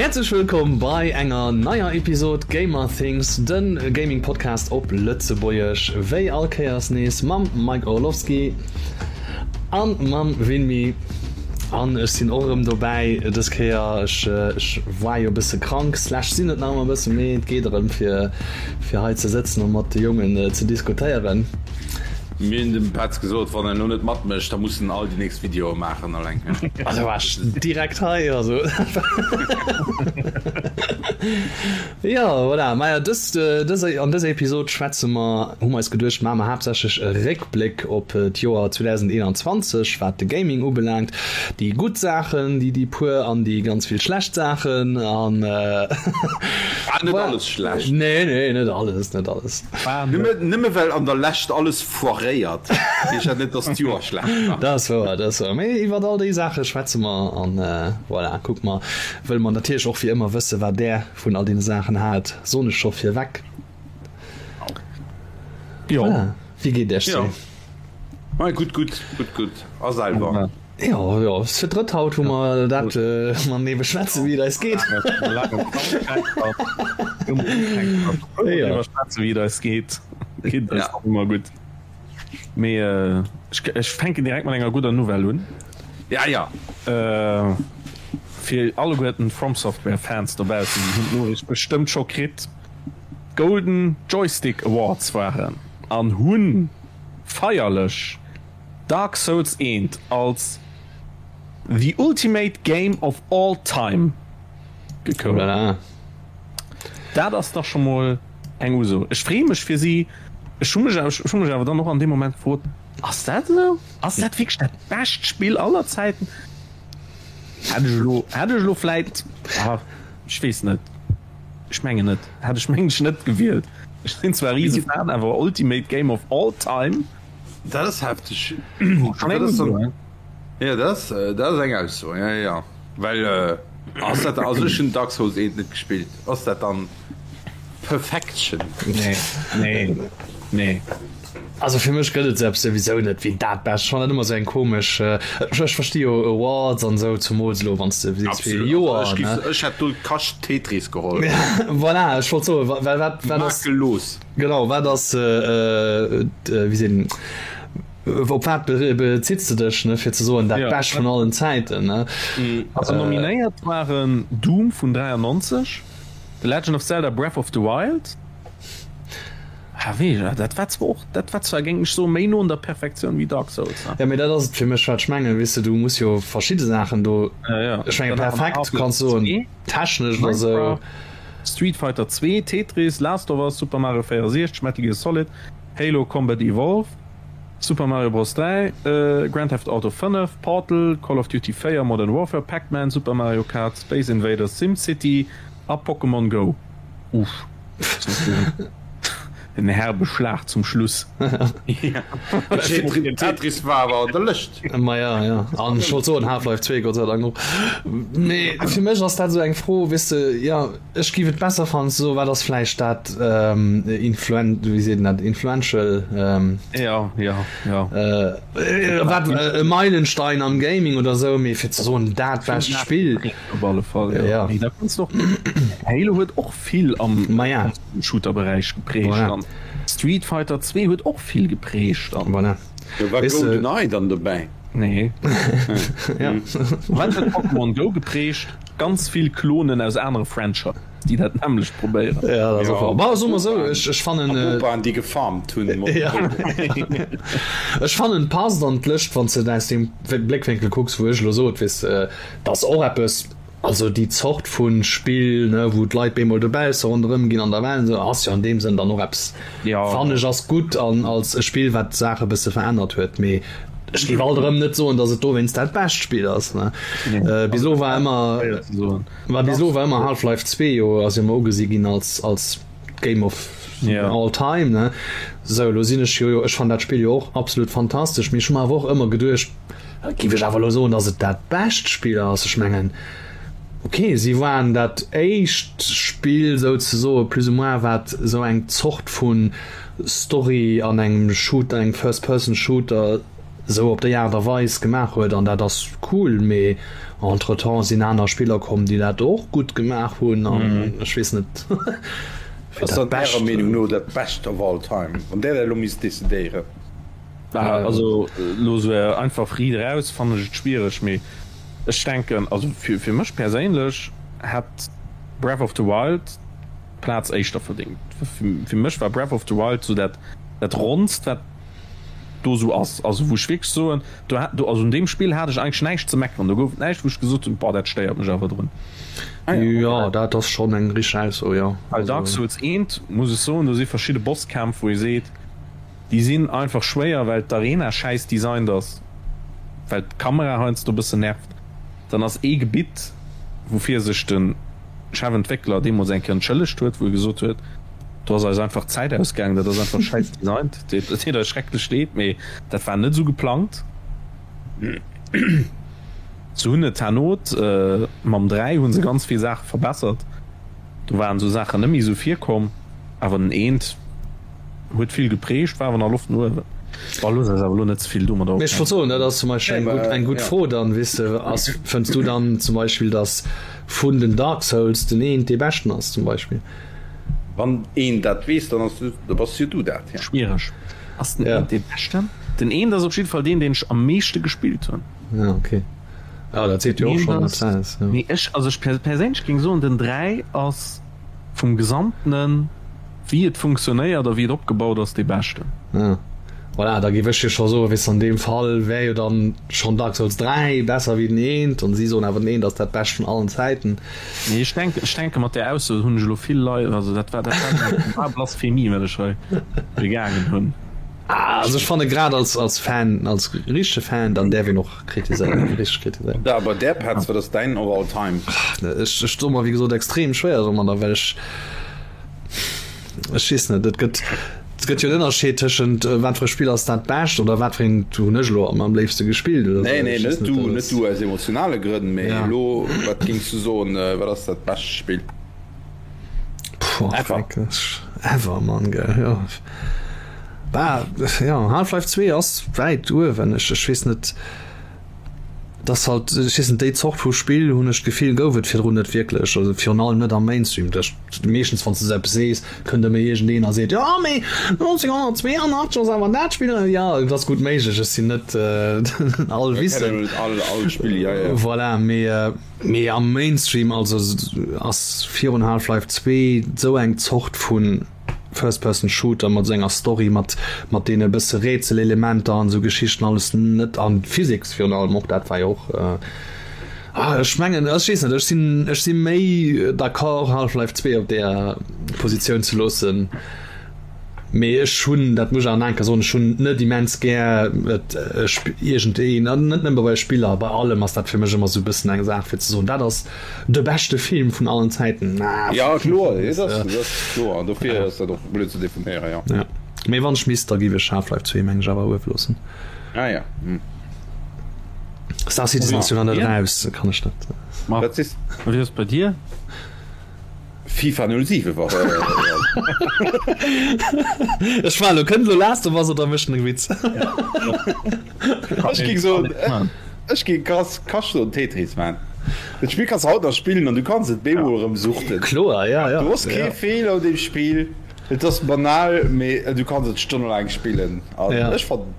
Häerzlech wëllkomm bei enger neier Episod Gamer Things, den Gaming Podcast op Lëtzebuergesch. Wéi all Kéiers nees mam Mike Orlowski an mam Winmi. An ech sinn och erëm dobäi dës Kéier. Ech ech war jo e bësse krank slash sinn et nach ëmmer e bësse, mee et geet erëm fir fir hei ze sëtzen a mat de Jongen ze diskutéieren. Mir hunn dem Petz gesot, wann en elo net matmécht, da muss en all déi nächst Videoe maachen alleng. Also war ech direkt hei, also. Jo, voilà. Maja, dës, dës, an dëser Episod schwätze mer, hu mer eis geduecht, maache mer haaptsächlech e Réckbléck op d'Joer 2021, wat de Gaming ubelaangt. Déi gutt Saachen, déi, déi puer an déi ganz vill schlecht Saachen an. War net alles schlecht. Nee, nee, net alles, net alles. Nëmme well an der Lescht alles foiréiert, heescht dat net, dass d'Joer schlecht war. Dat ass wouer, dat ass wouer. Mee iwwer all déi Saache schwätze mer an voilà, kucke mer. Wëlle mer natierlech och wéi ëmmer wësse wat Där vun all deene Saachen haalt, soen ech scho virweg. Jo. Voilà, wéi geet Iech sou? Mei gutt, gutt, gutt, gutt. A selwer? Jo, jo, ass fir d'drëtt haut, wou mer dat matenee beschwätzen, wéi et eis geet. Iwwer schwätzen, wéi et eis geet. Geet eis och ëmmer gutt. Mee ech, ech fänken direkt mat enger gudder Nouvelle un. Ja, ja. Fir alleguerten From Software Fans dobaussen, déi hunn d'Noriicht bestëmmt scho kritt, d'Golden Joystick Awards waren an hunn feierlech Dark Souls I als The Ultimate Game of All Time gekount. Dat ass dach scho mol eng Uso. Ech freeë mech fir si. Ech hu mech ech hu mech awer dann och an deem Moment gefrot, Ass dat esou? Ass dat wierklech dat bescht Spill aller Zäiten? Hätt ech elo hätt ech elo vläit, ech weess net, ech mengen net, hätt ech mengen ech net gewielt. Ech sinn zwar e Risefan, awer Ultimate Game of All Time? Dat ass hefteg. Ja, dat ass, dat ass eng Ausso, ja, ja. Well ass dat, also ech hunn Dark Souls 1 net gespillt, ass dat dann Perfection? Nee, nee, nee. Also fir mech gëtt et esou eppes souwisou net wéi dat Bescht. Ech fannen dat ëmmer esou eng komesch, ech versti jo Awards an esou, zumools elo wann s de sees fir e Joer, ne. Ech hätt do Kascht Tetris geholl. Voilà, ech wollt soen, well wat, wat ass. Makellos. Genau, wat ass, wéi sinn, op wat bezitts de dech, ne, fir ze soen, dat Bescht vun allen Zäiten, ne? Also nominéiert waren Doom vun 93, The Legend of Zelda Breath of the Wild, ah wéi, dat war zwar och, dat war zwar, géing ech soen, méi no un der Perfektioun wéi Dark Souls, ne? Jo, mee dat ass et fir mech, wat ech mengen, weess de, du muss jo verschidde Saachen do, ech menge perfekt kanns soen. Technesch oder sou. Street Fighter 2, Tetris, Last of Us, Super Mario 64, Metal Gear Solid, Halo Combat Evolved, Super Mario Bros. 3, Grand Theft Auto 5, Portal, Call of Duty 4, Modern Warfare, Pac-Man, Super Mario Kart, Space Invaders, SimCity a Pokémon Go. Uff. En herbe Schlag zum Schluss. Tetris war awer an der Lëscht. Maja, ja. An ech wollt soen Half-Life 2, Gott sei Dank och. Mee fir mech ass dat esou eng Fro, weess de, jo, ech géif et besser fannen ze soen, wat ass vläicht dat influen-, wéi seet een dat, influential, Ja, ja, ja. wat e Meilenstein am Gaming oder esou, mee fir ze soen dat bescht Spill. Op alle Fall, jo. Ja. Mee da kanns de och, Halo huet och vill am Maja. Shooter-Beräich geprägt Voilà. an Street Fighter 2 huet och vill geprägt an. Voilà. Do war Weess de. GoldenEye dann dobäi. Nee. Ja. Wat huet Pokémon Go geprägt? Ganz vill Klonen aus anere Franchisen, déi dat nämmlecht probéieren. Ja, dat ass och wahr. Bon, soe mer esou, ech, ech fannen. An Opaen, déi gefarmt hunn. Ja. Ech fannen, et passt an d'Lëscht, wann s de et aus deem Bléckwénkel kucks, wou ech elo sot, weess de, dat ass och eppes, Also déi Zort vu Spill, ne, wou d'Leit bemol dobausse ronderëm ginn an der Welt, esou, ass jo an deem Sënn dann och eppes, fannen ech, ass gutt an als e Spill, wat d'Saach e bësse verännert huet. Mee ech géif alt erëm net soen, datt et dowéinst dat bescht Spill ass, ne. Bis elo war ëmmer, war bis elo war ëmmer Half-Life 2 jo, ass jo ëmmer ugesi ginn als, als Game of all time, ne. Sou, elo sinn ech jo, ech fannen dat Spill jo och absolut fantastesch, mee ech hu mer awer och ëmmer geduecht, Giff ech awer elo soen, dass et dat bescht Spill ass. Ech mengen, ok, si waren dat éischt Spill souzesoe plus ou moins, wat esou eng Zort vu Story an engem Shooter, engem First-Person-Shooter esou op déi Aart a Weis gemaach huet an dat ass cool, mee. Entretemps sinn aner Spiller komm, déi dat och gutt gemaach hunn an ech weess net fir dat Bescht. Ärer Meenung no dat Bescht of all time, wann där dat elo misst decidéieren? Also elo esou einfach riit eraus fannen ech et schwiereg, mee ech denken, also fir mech perséinlech hätt Breath of the Wild d'Plaz éischter verdéngt. Fir mech war Breath of the Wild esou dat Ronnst wat do esou ass, also wou ech wierklech soen, do hat, do, also un deem Spill hat ech eigentlech näischt ze meckeren, do gouf et näischt wou ech gesot hunn, boah dat stéiert mech awer drun. Jo, dat ass schonn eng richteg Ausso, jo. Bei Dark Souls 1 muss ech soen, do si verschidde Bosskämpf wou ee seet, déi sinn einfach schwéier well d'Arena schäiss designt ass, well d'Kamera heiansdo e bëssen nervt. Dann ass ee Gebitt woufir sech de Chefentwéckler deemools eng Kéier entschëllegt huet, wou e gesot huet, do ass eis einfach d'Zäit ausgaangen, dat ass einfach schäiss designt, et deet eis schrecklech leed, mee dat war net esou geplangt. Se hunn et herno, mam 3 hu se ganz vill Saache verbessert, do waren esou Saachen net méi esou virkomm, awer den eent huet vill geprägt, war awer nach Loft no uewen. Bon, looss eis awer elo net ze vill domadder Mee ech wollt soen, dat ass zum Beispill eng gutt, eng gutt Fro dann, weess de, ass, fënns du dann zum Beispill, datt vun den Dark Souls den eent dee beschten ass zum Beispill? Wann een dat weess, dann ass, da bass jo du dat, ja. Schwiereg. Ass den eent dee beschten? Den eent ass op jidde Fall deen, deen ech am meeschte gespillt hunn. Ja, okay. Ja, dat seet jo och schonn eppes aus, jo. Mee ech, also ech perséinlech géing soen, den 3 ass vum Gesamtenen, wéi et funktionéiert a wéi et opgebaut ass, dee beschten. Ja, voilà, da géif ech jo scho soen, weess de, an deem Fall wär jo dann schonn Dark Souls 3 besser wéi den eent, an si soen awer, den eent ass dat Bescht vun allen Zäiten. Nee, ech denken, ech denke mat där Ausso hunn ech elo vill Leit, also dat war, dat war eng Blasphemie, wat ech hei begaangen hunn. Ah, also ech fanne grad als, als Fan, als richtege Fan, dann däerf een och kritiséieren, richteg kritiséieren. Da bei där Petz, wat ass däin of all time? Ech, ech doe mer wéi gesot extrem schwéier domadder, well ech, ech weess net, et gëtt, et gëtt jo en Ënnerscheed tëschent wat fir e Spill ass dat bescht oder wat fir eent hunn ech elo am léifste gespillt oder esou. Nee, nee, net du, net du aus emotionale Grënn, mee elo, wat géings du soen, wat ass dat bescht Spill? Puh, ever. Ever, Mann, gell, jo. Bah, jo, Half-Life 2 ass wäit uewen. Ech, ech weess net, dass halt, ech weess net, déi Zort vu Spill, hunn ech d'Gefill, gouf et virdrun net wierklech, also virun allem net am Mainstream. Dat, meeschtens, wann s de esou eppes sees, kënnt ëmmer iergendeen a seet, jo, mee 1982 ass awer dat Spill, jo, et ass gutt méiglech, ech sinn net allwissend. All, all Spill, jo, jo. Voilà, mee. Mee am Mainstream also ass virun Half-Life 2 sou eng Zort vu First-Person-Shooter mat sou enger Story, mat mat deene bësse Rätselelementer an sou Geschichten alles net an Physics virun allem och, dat war jo och ah ech mengen ech weess net, ech sinn ech si méi d'accord Half-Life 2 op deeër Positioun ze loossen. Mee ech hunn, dat muss ech awer nach eng Kéier soen, ech hunn net immens gär et iergend een, an net nëmme bei Spiller, bei allem ass dat fir mech ëmmer esou e bëssen eng Saach fir ze soen, dat ass de beschte Film vun allen Zäiten. Jo, kloer, dat ass, dat ass kloer, an dofir ass dat och blöd ze definéieren, jo. Ja, mee wann ech misst, da giff ech Half-Life 2 meng ech awer uewe loossen. Ah ja. Star Citizen ass jo nach net eraus, kann ech net. Wat ass bei dir? FIFA 07 war Ech war lo kënnt lo Last of Us oder mécht en Witz? Ech géing soen, ech géing krass Kascht soen Tetris man. Dat Spill kanns de haut nach spillen an du kanns et bemol erëm suchten. Kloer, ja, ja. Du hues kee Feeler un deem Spill, et ass banal, mee du kanns et stonnelaang spillen an ech fannen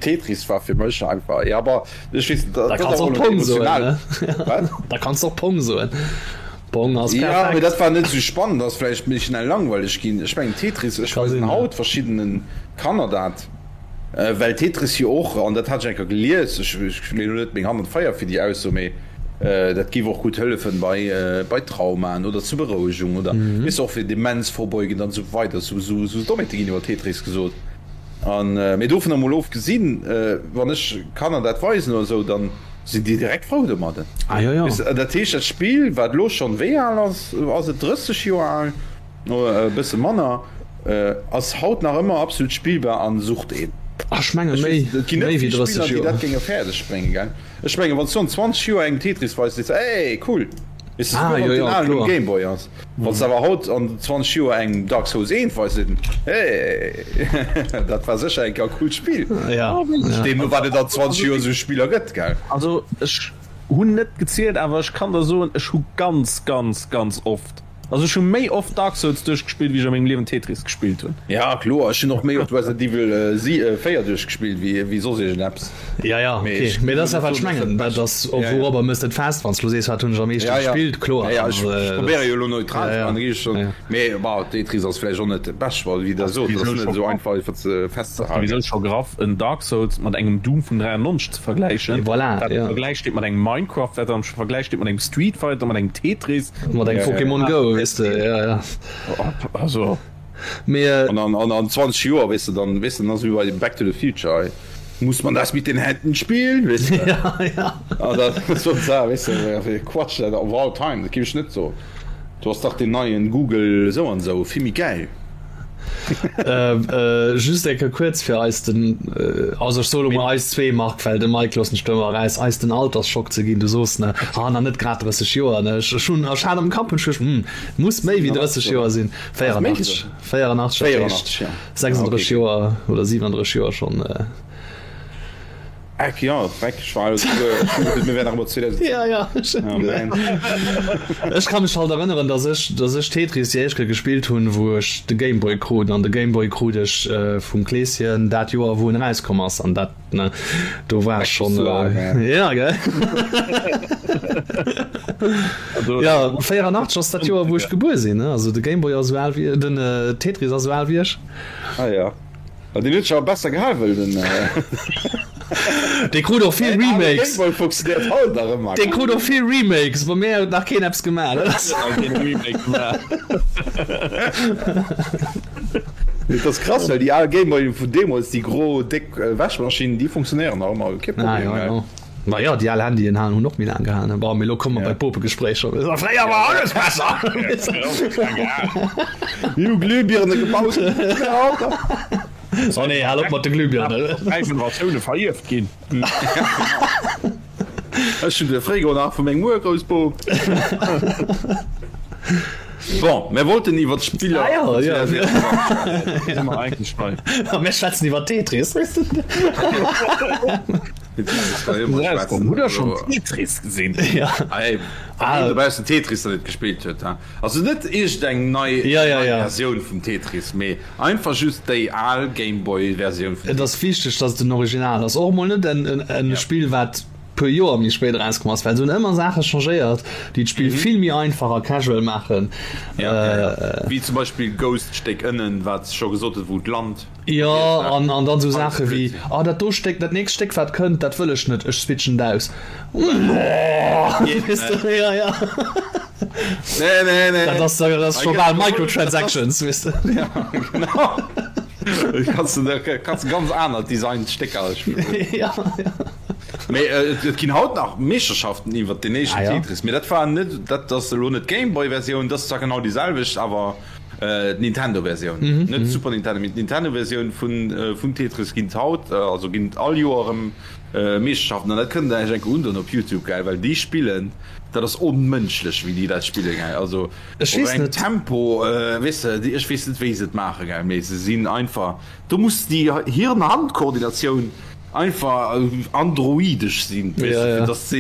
Tetris war fir mech einfach, ja, aber ech weess net, dat ass och emotional. Wat? Da kanns de och Pong soen. Pong ass perfekt. Ja, mee dat war net esou spannend, ass vläicht méi schnell langweileg ginn. Ech mengen Tetris, ech weisen haut verschiddene Kanner dat, well Tetris jo och, an dat hat ech eng Kéier gelies, ech leeën elo net meng Hand an d'Feier fir déi Ausso, mee dat géif och gutt hëllefen bei bei Traumaen oder zur Berouegung oder weess de och fir Demenz vorbeugend an esou weider. Esou esou Dommheete ginn iwwer Tetris gesot. An mee dovun emol ofgesinn, wann ech Kanner dat weisen oder esou, dann sinn déi direkt frou domadden. Ah, jo, jo. Dat heescht, dat Spill, wat elo schonn, wéi al ass, ass et 30 Joer al, e bësse manner, ass haut nach ëmmer absolut spillbar an sucht een. Ah, ech menge méi, Et ginn net méi wéi vill 30 Spiller, déi Joer. dat géinge fäerdeg bréngen, gell? Ech mengen, wann s du an 20 Joer engem Tetris weis, sees de, Ey, cool! Weess de, Ah, souguer wann jo, et jo, den alen um kloer. Game Boy ass. Wann s de awer haut an 20 Joer engem Dark Souls 1 weis, seet en, Hey, dat war sécher eng Kéier e coolt Spill. Ja, ja. Deemno wat et an 20 Joer esou Spiller gëtt, gell? Also ech. hunn net gezielt, awer ech kann der soen, ech hu ganz, ganz, ganz oft, also ech hu méi oft Dark Souls duerchgespillt, wéi ech a mengem Liewen Tetris gespillt hunn. Ja kloer, ech hunn och méi oft Resident Evil 4 duerchgespillt wéi soss iergendeppes. Ja, ja, okay. Mee dat ass ja wat ech mengen, dat ass och wourobber mëss de et fest, wann s du elo sees, wat hunn ech am meeschte gespillt, kloer. Ja, ja, ech probéiere jo elo neutral ze maachen, da gi ech schonn, mee bon, Tetris ass vläicht och net dat Bescht, well wéi Der sot, dat ass net esou einfach iwwer ze festzehalen. Souwisou scho graff en Dark Souls mat engem Doom vun 93 ze vergläichen, voilà, wat am Vergläich steet mat engem Minecraft, wat am Vergläich steet mat engem Street Fighter, mat engem Tetris. Mat engem Pokémon Go, weess de, ja, ja. Also. Mee. An an an 20 Joer, weess de, dann, weess de, dann ass et wéi bei Back to the Future, hei muss man das mit den Händen spielen, weess de. Ja, ja. An dat ass so d'Saach, weess de, wéi Quatsch dat of all time, dat géif ech net soen. Do ass dach deen neien Google esou an esou vill méi gäil. Just eng Kéier kuerz fir eis den, also ech soe lo mol eis zwee, Marc, well de Mike loossen ech do ëmmer eraus, eis den Altersschock ze ginn. Du soos, ne, ah nach net grad 30 Joer, ne? Ech hunn, ech hat am Kapp, hunn ech geduecht, hm, muss méi wéi 30 Joer sinn. 84, 84, dat heescht 36 Joer oder 37 Joer schonn. Eck, ja, Dreck, ech war souguer, mir wären nach ëmmer 2007. Ja, ja. Oh man. Ech ka mech halt erënneren, dass ech, dass ech Tetris déi éischt Kéier gespillt hunn, wou ech de Game Boy krut. An de Game Boy krut ech vum Kleeschen dat Joer, wou en erauskomm ass. An dat, ne, do war ech schonn. Ja, gell? Ja, 84 ass dat Joer, wou ech gebuer sinn, ne? Also de Game Boy ass esou al wéi, den Tetris ass esou al wéi ech. Ah ja. Ah, den huet sech awer besser gehal wëll den. Dee krut och vill Remakes. Game Boy funktioniert haut nach ëmmer. Dee krut och vill Remakes, bei mär huet nach keen eppes gemaach. Dat ass krass, well déi al Game Boy vun deemools, déi gro déck Wäschmaschinn, déi funktionéieren nach ëmmer, kee Problem. Ah, ja, ja. Ma jo, déi al Handyen halen hunn och méi laang gehalen. Bon, mee lo komme mer bei d'Bopegespréicher. Fréier war alles besser! Mir hu Glühbirne gebaut. Oh nee, hal op mat de Glühbirnen. Dräi Generatioune verierft ginn. Ech hunn de Frigo nach vu mengem Urgroussbop. Bon, mir wollten iwwer d'Spiller. Ah, ja, ja. Sinn mer eigentlech bei. A mir schwätzen iwwer Tetris. Hutt der schonn Tetris gesinn? Ja. Ah, dobaussen Tetris nach net gespillt huet, ha? Also net iergendeng nei ja, ja, ja. Versioun vum Tetris, mee einfach just déi al Gameboy-Versioun vum Tetris. Et ass wichteg, dass et den Original ass. Och mol net en, en, en ja. Spill, wat puer Joer méi spéit erauskomm ass, well se hunn ëmmer Saache changéiert, déi d'Spill mhm. vill méi einfach a casual maachen. Ja, äh, ja, ja. Wéi zum Beispill Ghost-Stéck ënnen, wat scho gesot huet, wou d'Land. Jo, an, an dann sou Saache wéi, oh dat do Stéck, dat nächst Stéck wat kënnt, dat wëll ech net, ech switchen et aus. Weess de, ja, ja. Nee, nee, nee. Dat ass, dat ass scho bal Microtransactions, weess de. Ja, genau. Kanns de, kanns de ganz aner designt Stécker spillen. Ja, ja. Mee et, et ginn haut nach Meeschterschaften iwwert den éischten Ah, ja. Tetris, mee dat war net, dat ass elo net d'Gameboy-Versioun, dat ass zwar genau déi selwecht, awer D'Nintendo-Versioun, net d'Super Nintendo, mee d'Nintendo-Versioun vun vum Tetris ginn et haut, also ginn et all Joer erëm Meeschterschaften an dat kënnt der iech enke undoen op Youtube, gell, well déi spillen, dat ass onmënschlech wéi déi dat spillen, gell, also Ech op weess engem net. Tempo, weess de, déi, ech weess net wéi se et maachen, gell, mee se sinn einfach, do muss déi Hirn-Hand-Koordinatioun einfach androidesch sinn, weess de, fir dass se.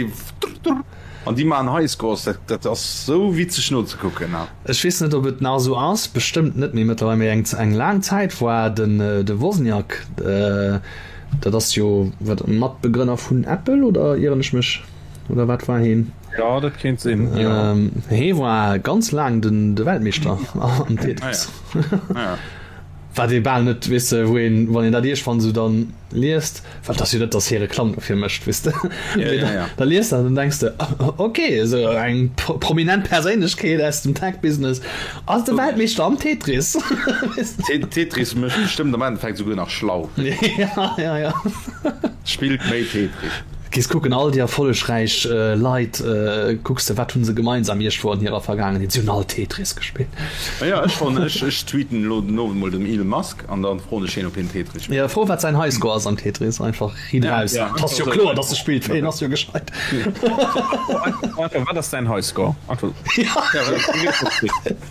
An déi maachen Highscores, dat, dat ass sou witzeg nozekucken. Ech weess net, ob et nach esou ass, bestëmmt net méi mëttlerweil, mee eng, eng laang Zäit war den, de Wozniak, dat ass jo wat, Matbegrënner vun Apple, oder ieren ech mech, oder wat war heen? Jo, dat kéint sinn, jo. Hee war ganz laang den, de Weltmeeschter am Tetris. Ah ja. Wat ee bal net, weess de, wou een, wann een dat iergendwann esou dann liest, well et ass jo net, datt hie Reklamm dofir mécht, weess de, Ja, ja, ja. da liest dat an dann denks de, ok, esou eng prominent Perséinlechkeet aus dem Tech-Business ass de Weltmeeschter am Tetris. Tetris mécht bestëmmt am Endeffekt esouguer nach schlau. Ja, ja, ja. Spillt méi Tetris. Gees kucken, all déi erfollegräich Leit, kucks de, wat hu se gemeinsam iergendwou an hirer Vergaangenheet? Si hunn all Tetris gespillt. Jo, ech fannen, ech, ech tweeten elo den Owend mol dem Elon Musk an dann froen ech hien, ob hien Tetris spillt. Jo, fro wat säin Highscore ass am Tetris, einfach riit eraus. Ja, Et ass jo kloer, dass e spillt, well hien ass jo gescheit. Einfach, wat ass däin Highscore? Einfach. Ja,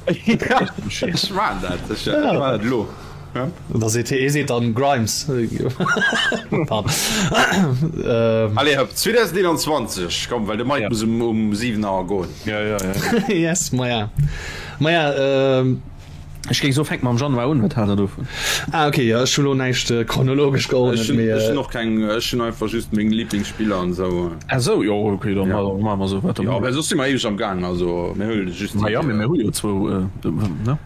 ech maan dat, ech maan dat elo. Da seet hie, seet dann Grimes. Allez hop, 2021, komm, well de Mike muss um, um 7 Auer goen. Ja, ja, ja. Yes, maja. Maja, ähm. Ech géing soen, fänk mam Januar un, wat haalt der dovun? Ah, okay, ja, ech hu lo näischt chronologesch geordnet, Ech hunn, ech hunn och keng, ech hunn einfach just meng Liblingsspiller an esou. Ah sou, jo, okay, dann ja. maache mer esou wat. Jo, well soss si mer éiweg am Gaang, also mir huele just déi. Ma ja, mee mir hu jo zwou, ne?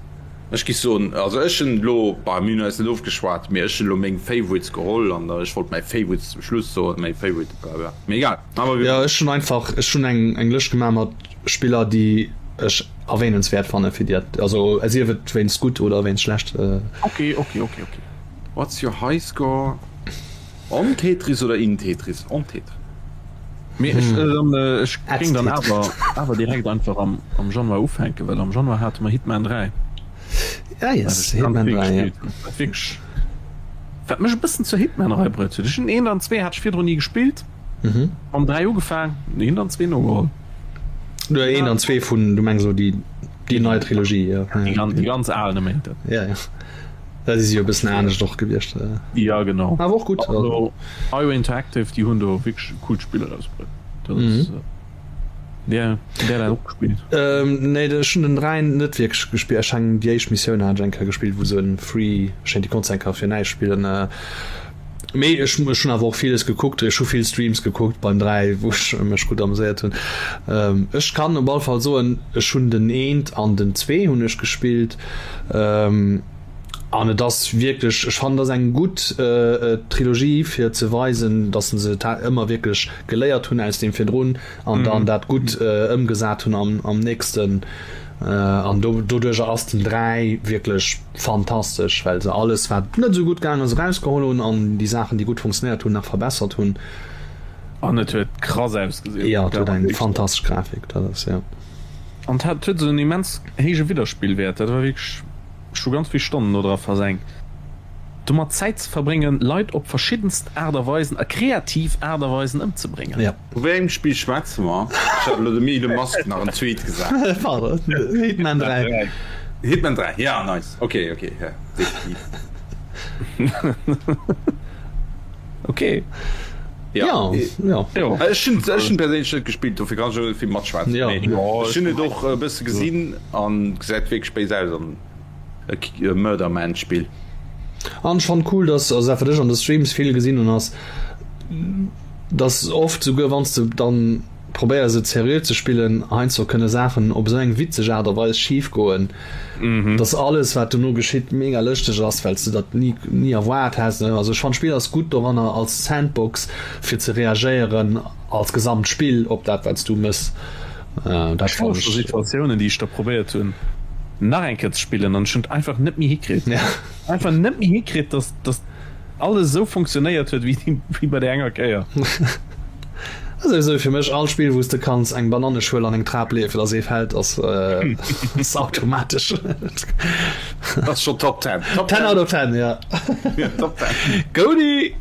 Ech gi soen, also ech hunn elo, bah, mir hunn eis net ofgeschwat, mee ech hunn elo meng Favorites geholl an ech wollt mäi Favorite zum Schluss soen, mäi Favorite, bla bla, mee egal. Jo, ech hunn einfach, ech hunn eng, eng Lëscht gemaach mat Spiller, déi ech erwähnenswäert fanne fir déi, also sief et wéinst gutt oder wéinst schlecht. Ok, ok, ok, ok. What's your high score on Tetris oder in Tetris? On Tetris. Mee ech, ech géing dann awer, awer direkt einfach am, am Januar ufänken, well am Januar hate mer Hitman 3. Ah yes, Hitman 3, ja. Wat wierklech, wat mech e bëssen zur Hitman-Rei bruet huet. Ech hunn eent an zwee hat ech virdrun ni gespillt. Mam 3 ugefaang, eent an zwee nogeholl. Du eent an zwee vun, du mengs elo déi, déi nei Trilogie, jo. Déi ganz, déi ganz al, ne mengt dat. Ja, ja. Dat si jo e bëssen anescht och gewiescht. Ja, genau. Awer och gutt. Also IO Interactive, déi hunn do wierklech e coolt Spill erausbruet. Dat ass, där, där dat och gespillt? Nee, ech hunn den 3 net wierklech gespillt. Ech eng déi éischt Missioun hat ech eng Kéier gespillt, wou se en Free, ech mengen déi konns de eng Kéier fir näischt spillen. Mee ech ech hunn awer och villes gekuckt, ech hu vill Streams gekuckt beim 3, wou ech mech gutt ameséiert hunn. Ech kann op alle Fall soen, ech hunn den eent an den zwee hunn ech gespillt an et ass wierklech, ech fannen et ass eng gutt Trilogie fir ze weisen, datt se ëmmer wierklech geléiert hunn aus deem virdrun an dann dat gutt ëmgesat hunn am am nächsten an do doduercher ass den 3 wierklech fantastesch, well se alles wat net esou gutt gaang ass erausgeholl hunn an déi Saachen déi gutt funktionéiert hunn nach verbessert hunn. An et huet krass ausgesinn. Jo, et huet eng fantastesch Grafik, dat ass jo. An et hat huet esou en immens héije Widderspillwäert, dat war wierklech, ech hu ganz vill Stonnen do dra versenkt domat Zäit ze verbréngen Leit op verschiddenst Aart a Weisen a kreativ Aart a Weisen ëmzebréngen. Jo. Vu wéi engem Spill schwätze mer? Ech hat elo dem Elon Musk nach en Tweet gesat. Pardon, Hitman 3. Hitman 3, ja nice. Ok, ok, ja, definitiv. Ok. Ja, ja. Ja. Ech hunn ech hunn perséinlech net gespillt, dofir kann ech och net vill matschwätzen. Ja. Mee ech hunn et och e bësse gesinn an gesäit wierklech béis aus an e Murder Man Spill. An ech fannen cool, dass, also dat wat ech an de Streams vill gesinn hunn ass, dass oft souguer wann s de dann probéiers et seriö ze spillen, heiansdo kënne Saachen op esou eng witzeg Aart a Weis schif goen, dass alles wat dono geschitt mega lëschteg ass, well s de dat ni ni erwaart häss. Also ech fannen d'Spill ass gutt doranner als Sandbox fir ze reagéieren als gesamt Spill op dat wat s du mëss. Dat Ech fannen ech. Situatiounen déi ech da probéiert hunn nach eng Kéier ze spillen an ech hunn et einfach net méi hikritt, einfach net méi hikritt, dass dass alles esou funktionéiert huet wéi bei der enger Kéier. Also esou fir mech all Spill wous de kanns eng Bananneschuel an eng Trap leeë fir dass ee fält ass ass automatesch. Ass schon Top 10. Top 10 out of 10 ja. Ja, Top 10. Goudie!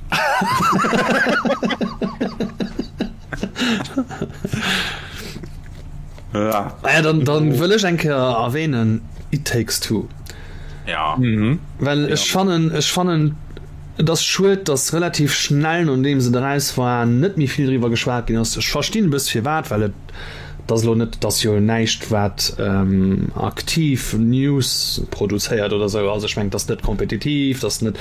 Ja. Ah ja, dann, dann wëll ech eng Kéier erwähnen It Takes Two. Ja. Mhm. Well ech fannen, ech fannen, et ass schued, dass relativ schnell nodeem se eraus war, net méi vill driwwer geschwat ginn ass. Ech verstinn e bëss firwat, well et et ass elo net, et ass jo näischt wat aktiv News produzéiert oder esou. Also ech mengen, et ass net kompetitiv, et ass net,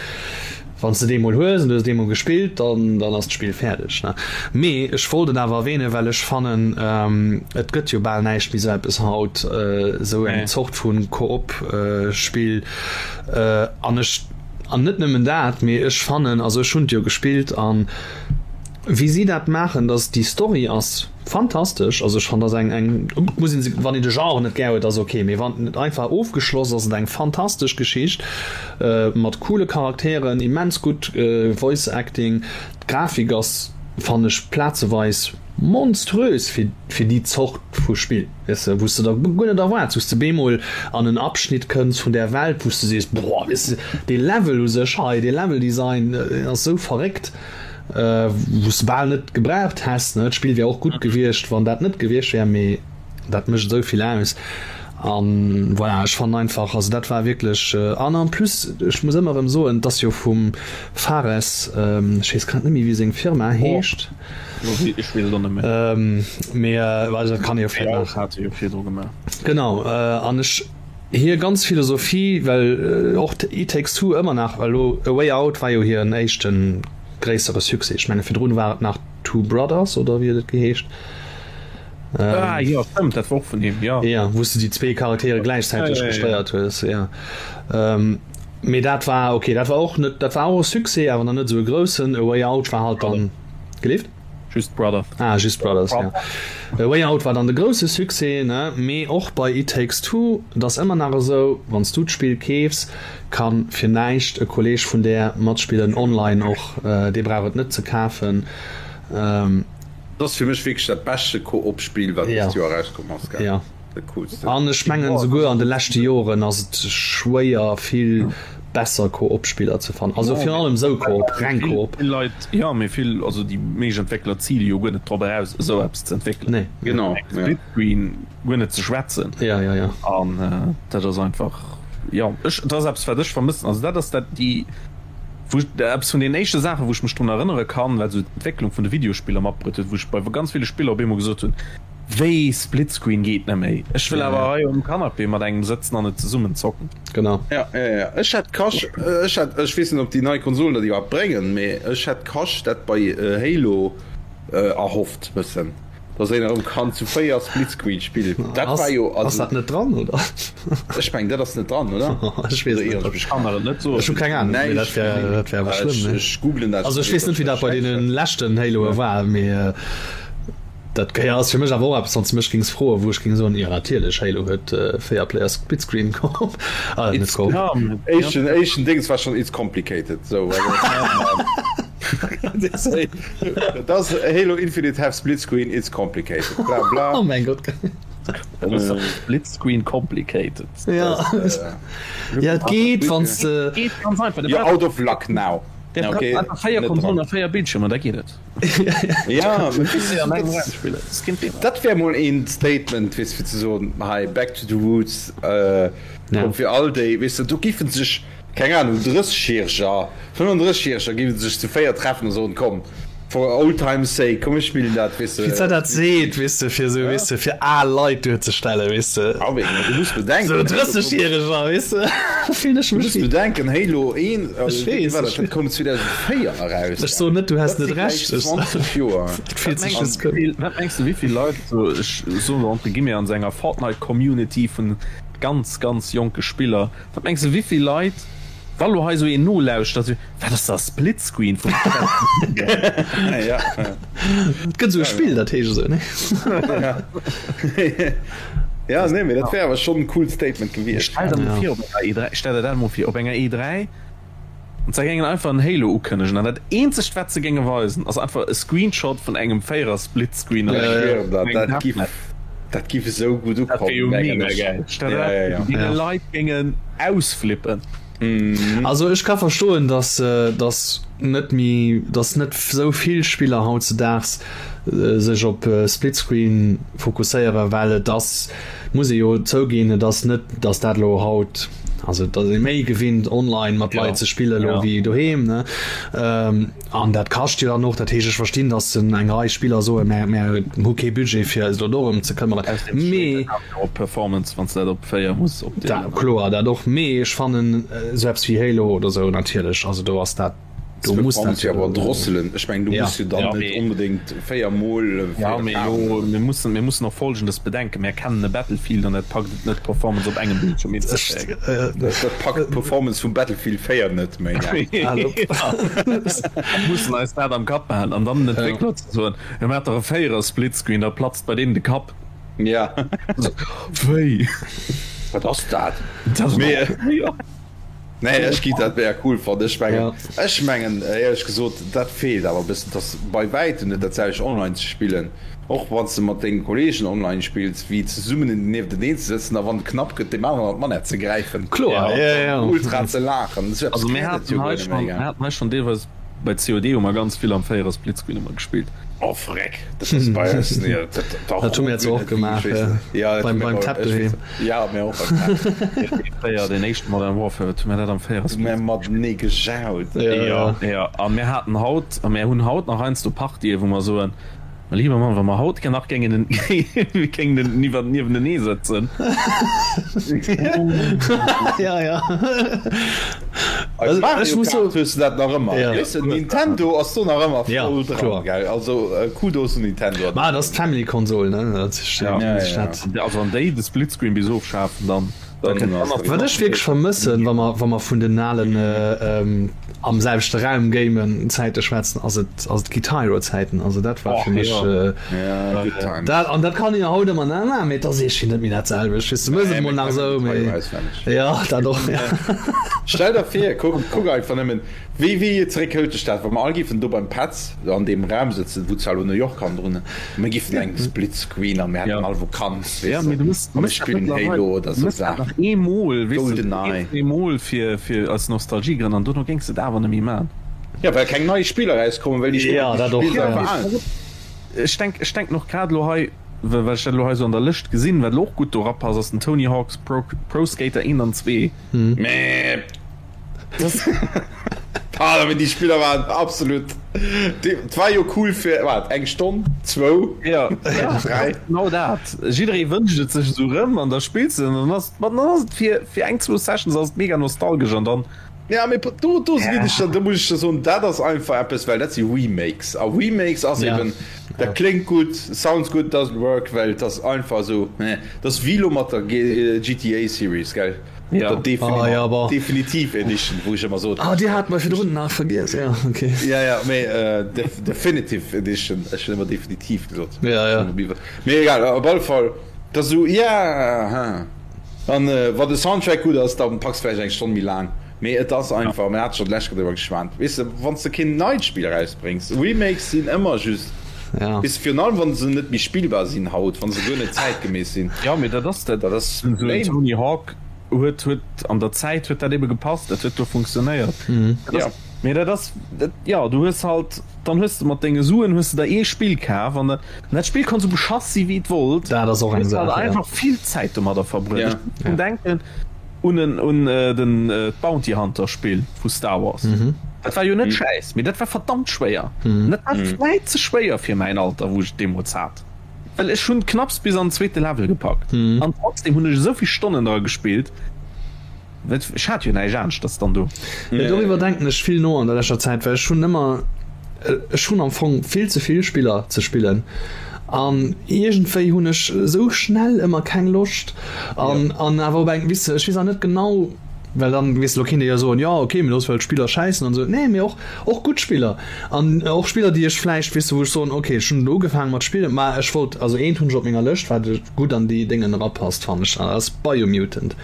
Wann s de dee mol hues an du hues dee mol gespillt, dann dann ass d'Spill fäerdeg, ne? Mee ech wollt et awer erwähnen, well ech fannen, et gëtt jo bal näischt méi sou eppes haut, esou eng Zort vu Koop-Spill. An ech, an net nëmmen dat, mee ech fannen, also ech hunn et jo gespillt an wéi si dat maachen, dass déi Story ass fantastesch. Also ech fannen, dat ass eng, eng, muss een, wann een de Genre net gär huet, ass ok, mee wann et einfach ofgeschloss ass, et eng fantastesch Geschicht. Mat coole Charakteren, immens gutt Voice Acting, d'Grafik ass fannen ech plazeweis monströs fir fir déi Zort vu Spill, weess de, wou s de der guer net erwaarts, wou s de bemol an en Abschnitt kënns vun där Welt, wou s de sees, boah, weess de, dee Level u sech hei, dee Level Design ass esou verréckt, wou s de bal net gebraucht häss, ne. D'Spill wär och gutt gewiescht, wann dat net gewiescht wär, mee dat mécht esou vill aus. An voilà, ech fannen einfach, also dat war wierklech, an en plus, ech muss ëmmer erëm soen, et ass jo vum Fares, ech weess grad net méi wéi seng Firma heescht, Ech weess et och net méi. Mee also dat kann ee jo vläicht nach. Hat e jo virdru gemaach. Genau, an ech, hir ganz Philosophie, well och It Takes Two ëmmer nach, elo A Way Out war jo hiren éischte gréissere Succès, ech menge virdrun war et nach Two Brothers oder wéi huet et geheescht? Ah jo, stëmmt, dat war och vun him, jo. Jo, wou s de déi zwee Charaktere gläichzäiteg Ja, ja, ja. gesteiert hues, jo. Mee dat war, okay, dat war och net, dat war och e Succès, awer nach net esou e groussen. A Way Out war halt dann, gelift? Just Brothers. Ah, Just Brothers, jo. A Way Out war dann de grousse Succès, ne? Mee och bei It Takes Two, et ass ëmmer nach esou, wann s du d'Spill keefs, ka fir näischt e Kolleeg vun där matspillen, online och, dee brauch et net ze kafen. Dat ass fir mech wierklech dat beschte Koop-Spill wat dëst Joer erauskomm ass, gell? Ja. Dat coolste. An ech mengen esouguer an de leschte Joren ass et schwéier vill besser Koop-Spiller ze fannen. Also virun allem esou Koop, reng Koop. Vill Leit, jo, mee vill, also déi meescht Entwéckler zile jo guer net drop eraus esou eppes ze entwéckelen. Nee. Genau, ja. Splitscreen guer net ze schwätzen. Ja, ja, ja. An dat ass einfach, jo, ech, dat ass eppes wat ech vermëssen. Also dat ass dat déi. Wou ech, eppes vun den éischte Saachen, wou ech mech drun erënnere kann, wat esou d'Entwécklung vun de Videospiller matbruet huet, wou ech bei ganz ville Spiller op eemol gesot hunn, Wéi, Splitscreen geet net méi? Ech wëll awer hei um Canapé mat engem sëtzen an et zesummen zocken. Genau. Ja, ja, ja. Ech hätt Cash, ech hätt, ech weess net, ob déi nei Konsolen dat iwwerhaapt bréngen, mee ech hätt Cash dat bei Halo erhofft bëssen. Dass een erëm kann zu 4 Splitscreen spillen. Dat war jo, also. Ass dat net dran, oder? Ech mengen, dat ass net dran, oder? Ech weess et net. Ech kann der et net soen. Ech hu keng Ahnung, mee dat wär, dat wär awer schlëmm, ne? Ech googlen dat. Also ech weess net, wéi dat bei deene leschten Haloe war, mee dat jo ass fir mech awer och eppes, wann s de mech géings froen, wou ech géing soen, jo natierlech, Halo huet 4 Player Splitscreen Koop, ah net Koop. Éischten, éischten Dings war schonn It's complicated, sou. Does Halo Infinite have split screen? It's complicated. Bla bla. Oh mein Gott. Split screen complicated. Ja, ja et geet wann s de. Geet ganz einfach. You're out of luck now. Okay, einfach 4 Konsolen a 4 Bildschirmer, da geet et. Ja, dat wär mol een Statement, weess fir ze soen, hei back to the roots, komm fir all déi, weess de, do giffen sech keng Ahnung, 30-Järeger, 35-Järeger géife sech zu 4 treffen a soen, komm, for old times sake, komm mir spillen dat, weess de. Wéi se dat seet, weess de, fir esou, weess de, fir al Leit duerzestellen, weess de. Ah wéi, du muss bedenken. Esou 30-Järeger, weess de, fillen ech Du mech muss wéi. bedenken, Halo 1, Ech wéi weess, war ech dat, dat weess. koum 2004 eraus, Ech soen net, du häss dat net si gläich Recht, ech. 20 Joer. Et fillt sech Wat just gutt. mengs du, wat mengs du, wéi vill Leit, esou, ech soen elo entre guillemets, an esou enger Fortnite-Community vun ganz, ganz jonke Spiller, Wat mengs de wéivill Leit, wa lo hei sou een nolauschtert, sou, wat ass dat Splitscreen vum Ja. Et gëtt esou e Spill, dat heescht esou, ne? Ja, nee, mee dat wär awer schonn en coolt Statement gewiescht. Stell der mol vir op enger E3, stell der dat mol vir, op enger E3, an se géingen einfach en Halo ukënnegen an dat eenzegt wat se géinge weisen ass einfach e Screenshot vun engem 4er Splitscreen an Ech engem schwieren der, dat engem giff, Deathmatch. dat giff esou gutt Dat wär ukommen, jo mengen mega ech. gäil. Stell Ja, der ja, ja. dat vir, déi Ja. Leit géingen ausflippen. Also ech ka verstoen, dass dass net méi, dass net esou vill Spiller hautzedaags sech op Splitscreen fokusséieren, well et ass, muss ee jo zouginn, et ass net, dass dat elo haut, also et ass ee méi gewinnt online mat Leit ze spille elo wéi doheem, ne? An dat kascht jo dann och. Dat heescht, ech verstinn, datt eng Rei Spiller soen, mär, mär hu kee Budget fir eis elo dorëm ze këmmeren. Mee. Op Performance, wann s de dat op 4 muss opdeelen. Dat, kloer, dat och. Mee ech fannen esou eppes wéi Halo oder esou natierlech, also do ass dat, do muss dat jo awer drosselen. Ech mengen, du muss jo dann net onbedéngt 4 mol 4 Ja, mee elo, mir mussen, mir mussen och Folgendes bedenken, Mär kennen e Battlefield an dat packt et net, d'Performance op engem Bildschirm hinzekréien. Dat packt d'Performance vum Battlefield 4 net méi. Mussen eis dat am Kapp behalen an dann den Entwéckler ze soen, jo maacht dach e 4er Splitscreen, da platzt bei deenen de Kapp. Ja. Wéi? Wat ass dat? Dat ass Mee. Nee, ech gi dat wär cool fannen. Ech mengen, ech mengen éierlech gesot, dat feelt awer e bëssen, dass bei wäitem net dat selwecht online ze spillen, och wann s de mat denge Kolleegen online spills, wéi zesummen niefteneen ze sëtzen a wann et knapp gëtt, deem aneren an d'Manett ze gräifen Kloer, an ja, ja. ultra ze laachen. Esou eppes Also mir gëtt et jo haten hei guer net schonn, méi, mir gell? haten hei schonn deelweis. Bei COD hu mer ganz vill am 4er Splitscreen ëmmer gespillt. Oh freck, dat ass bei eis nee, dat, dat Dat hu mir jetzt och gemaach, ja, beim, beim Tab doheem. Ja, mir och beim Tab. Fréier den éischten Modern Warfare, wat hu mir dat am 4er Split. Mir matenee gejaut. Ja, ja. Ja, a mir haten haut, a mir hunn haut nach heiansdo Partye wou mer soen, Mä lieber Mann, wa mer haut nach géingen géingen niwwer niewentenee sëtzen. Ja, ja. Als Mario Kart hues du dat nach ëmmer. Ja. Weess de, Nintendo ass do nach ëmmer Ja, voll dran, kloer. gell? Also Kudos un Nintendo. Ma et ass d'Family-Konsol, ne? Dat ist, Ja. ja, ja. Dat. Also wann déi de Splitscreen bis ofschafen, dann. Wat ech wierklech vermëssen, wa mer, wa mer vun den alen am selwechte Raum gamen Zäite schwätzen, ass et, ass et Guitar Hero Zäiten. Also dat war fir mech dat, an dat kann een jo haut ëmmer nach maachen, mee et ass iergendwéi net méi dat selwecht. Weess du, méchs et emol nach esou, mee jo, dat och, jo. Stell der vir, kuck, kuck einfach nëmmen, Wéi wéi zeréck hëlt dech dat, wa mer all giffen do beim Petz an deem Raum sëtzen, wou zwar elo New York hannendrun, a mir giffen eng Split Screen a mir hätten all Vakanz, weess de, a mir spillen Halo oder sou Saachen. GoldenEye. Eemol fir fir aus Nostalgiegrënn an dono géings de et awer net méi man. Jo, well keng nei Spiller erauskommen, well déi Spiller, déi s de spills, einfach al sinn. Ech denk ech denken och grad elo hei, well ech dat elo hei sou an der Lëscht gesinn, wat elo och gutt do rapasst, ass den Tony Hawk's Pro Pro Skater 1 an 2. Mee. Ah, mee déi Spiller waren absolut. Et war jo cool fir wat eng Stonn, zwou, ja, dräi. Genau dat. Jidderee wënscht et sech esou rëm an da spills de an dann ass et, dann ass et fir, fir eng, zwou Sessions ass et mega nostalgesch an dann. Ja, mee do, do ginn ech der, do muss ech der soen, dat ass einfach eppes, well dat si Remakes a Remakes ass eben, dat kléngt gutt, sounds good, doesn't work, well et ass einfach esou, dat ass wéi elo mat der GTA Series, gell. Ja. Defini ah, ja, aber. Definitiv Edition, wou ech ëmmer sot. Ah, Dir hat mer virdrun nach vergiess, ja, okay. Ja, ja, mee äh, def Definitive Edition, ech hunn ëmmer definitiv gesot. Ja, ja. Mee egal, op alle Fall, dat ass esou, ja, ha. An äh, wann de Soundtrack gutt ass, dann packs vläicht eng Stonn méi laang. Mee et ass einfach, mir hate scho d'lescht Kéier driwwer geschwat, weess de, wann s de keen neit Spill erausbréngs, Remakes sinn ëmmer just, Ja. weess de, virun allem wann se net méi spillbar sinn haut, wann se guer net zäitgemäss sinn. Ja, mee dat ass dat. Dat ass Den lame. Tony Hawk huet huet an der Zäit huet dat ebe gepasst, dat huet do funktionéiert. Dat Ja. ass, mee dat ass dat, ja, du hues halt, dann hues de mat denge Suen hues de der ee Spill kaf an dat, an dat Spill konnt sou beschass si wéi et wollt. Dat ass och Du eng hues halt Saach, ja. einfach vill Zäit domadder verbruet. Ja. Ech muss drun denken un en un den d'Bounty Hunter Spill vu Star Wars. Dat war jo net schäiss, mee dat war verdammt schwéier. An dat war vläit ze schwéier fir mäin Alter, wou ech et deemools hat. Well ech hunn knapps bis an den zweete Level gepackt an trotzdem hunn ech esou vill Stonnen dra gespillt, well ech hat jo näischt aneschters dann do. Jo, doriwwer denken ech vill no an der leschter Zäit, well ech hunn ëmmer, ech hunn am Fong vill ze vill Spiller ze spillen an iergendwéi hunn ech esou schnell ëmmer keng Loscht an an awer op eng, weess de, ech weess awer net genau, well dann, weess de, lo kéint ee jo soen, jo ok, mee looss well d'Spiller schäissen an esou. Nee, mee och och gutt Spiller an och Spiller, déi ech vläicht, weess de, wou ech soen, ok, ech hunn elo ugefaange mat spillen, ma ech wollt, also eent hunn ech op menger Lëscht, wat gutt an déi Déngen erapasst, fannen ech, dat ass Biomutant.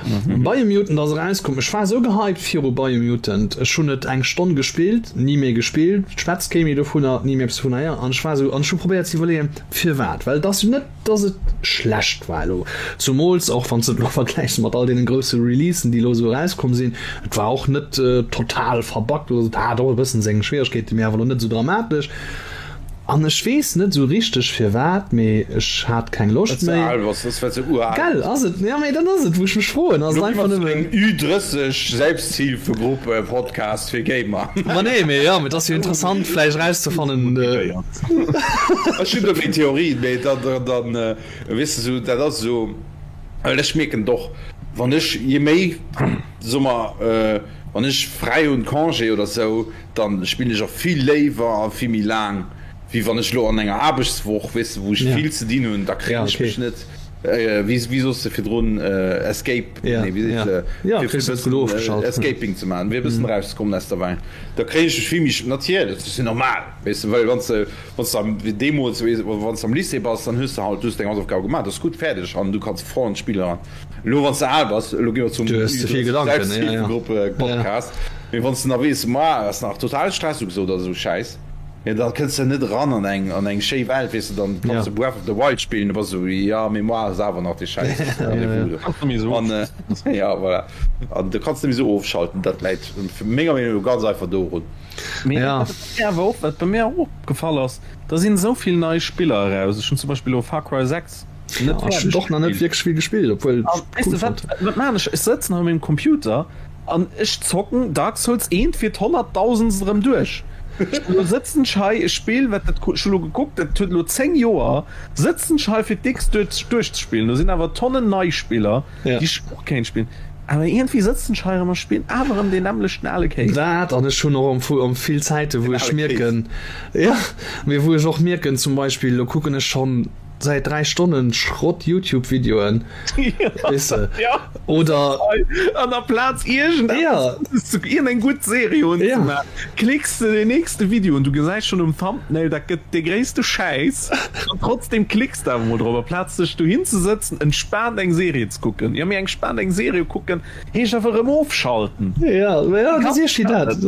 Biomutant ass erauskomm, ech war esou gehypt viru Biomutant, ech hunn et eng Stonn gespillt, ni méi gespillt, schwätzt kee méi dovunner, ni méi eppes dovunner héieren an ech war esou, an ech hu probéiert ze iwwerleeën, firwat, well et ass jo net, dass et schlecht war elo, zumools och wann s de et elo vergläichs mat all deenen grousse Releasen, déi elo esou erauskomm sinn, et war och net total verbuggt oder esou, et hat och e bëssen seng Schwieregkeeten, mee awer elo net esou dramatesch. An ech weess net esou richteg firwat, mee ech hat keng Loscht méi. Gell, ass et? Jo, mee dat ass et, wou ech mech froen, ass et einfach nëmmen. Ü30 Selbsthilfegruppe-Podcast fir Gamer. Ma nee, mee jo, mee et ass jo interessant vläicht erauszefannen. Ech hunn do meng Theorien, mee dann, dann, weess de, sou, dat ass esou, well ech mierken et och, wann ech, je méi, soe mer, wann ech fräi hunn, Congé oder sou, dann spillen ech och vill léiwer a vill méi laang, wéi wann ech elo an enger Aarbechtswoch, weess de, wou ech vill ze dinn hunn, da kréien ech mech net, wéi wéi soss de virdrun, Escape, nee wéi seet se, fir e bëssen Escaping ze maachen, fir e bëssen erauszekommen aus der Welt, da kréien ech mech vill méi, natierlech, dat ass jo normal, weess de, well wann s de, wann s de am, wéi deemools, weess de, wann s de am Lycée bass, dann hues de halt, du hues deng Hausaufgabe gemaach, dat ass gutt, fäerdeg an du kanns voll an d'Spill eran. Elo wann s de al bass, elo gi mer zum Selbsthilfegruppe-Podcast, mee wann s de nach weess, ma ass nach total Stress ugesot oder esou Schäiss. Jo, da kënns de net eran an eng, an eng schéi Welt, weess de, dann kanns de Breath of the Wild spillen, du bass esou, jo, Mémoire ass awer nach dee Schäiss Rendez-vous do. An, ja, voilà. An du kanns net méi esou ofschalten, dat läit menger Meenung no ganz einfach dorun. Mee wat mir awer och, wat bei mir och opgefall ass, da sinn esou vill nei Spiller eraus. Ech hunn zum Beispill elo Far Cry 6 net fäerdeg gespillt. Och nach net wierklech vill gespillt, obwuel ech cool fonnt. Weess de wat, wat maan ech? Ech sëtzen hei um mengem Computer An ech zocken Dark Souls 1 fir d'honnertdausendst erëm duerch. Elo sëtzen ech hei, e Spill wat dat, ech hu lo gekuckt, dat huet elo 10 Joer, sëtzen ech hei fir d'X duerch duerchzespillen. Do sinn awer Tonnen nei Spiller, déi ech och kéint spillen, awer iergendwéi sëtzen ech hei erëm a spillen awer erëm deen nämmlechten ale Kéis. Dat, an ech hunn och am am vill Zäite wou ech mierken, jo, mee wou ech och mierken, zum Beispill elo kucken ech schonn, Säit 3 Stonnen Schrott Youtube Videoen weess de oder an der Plaz iergend eppes ze iergend eng gutt Serie unzemaachen klicks de den nächste Video un, du gesäis schonn um Thumbnail dat gëtt de gréisste Schäiss an trotzdem klicks de awer mol drop aplaz dech dohin ze sëtzen entspaant eng Serie ze kucken. Jo mee entspaant eng Serie kucken Heescht einfach erëm ofschalten. Ja, ja, dat ass dat.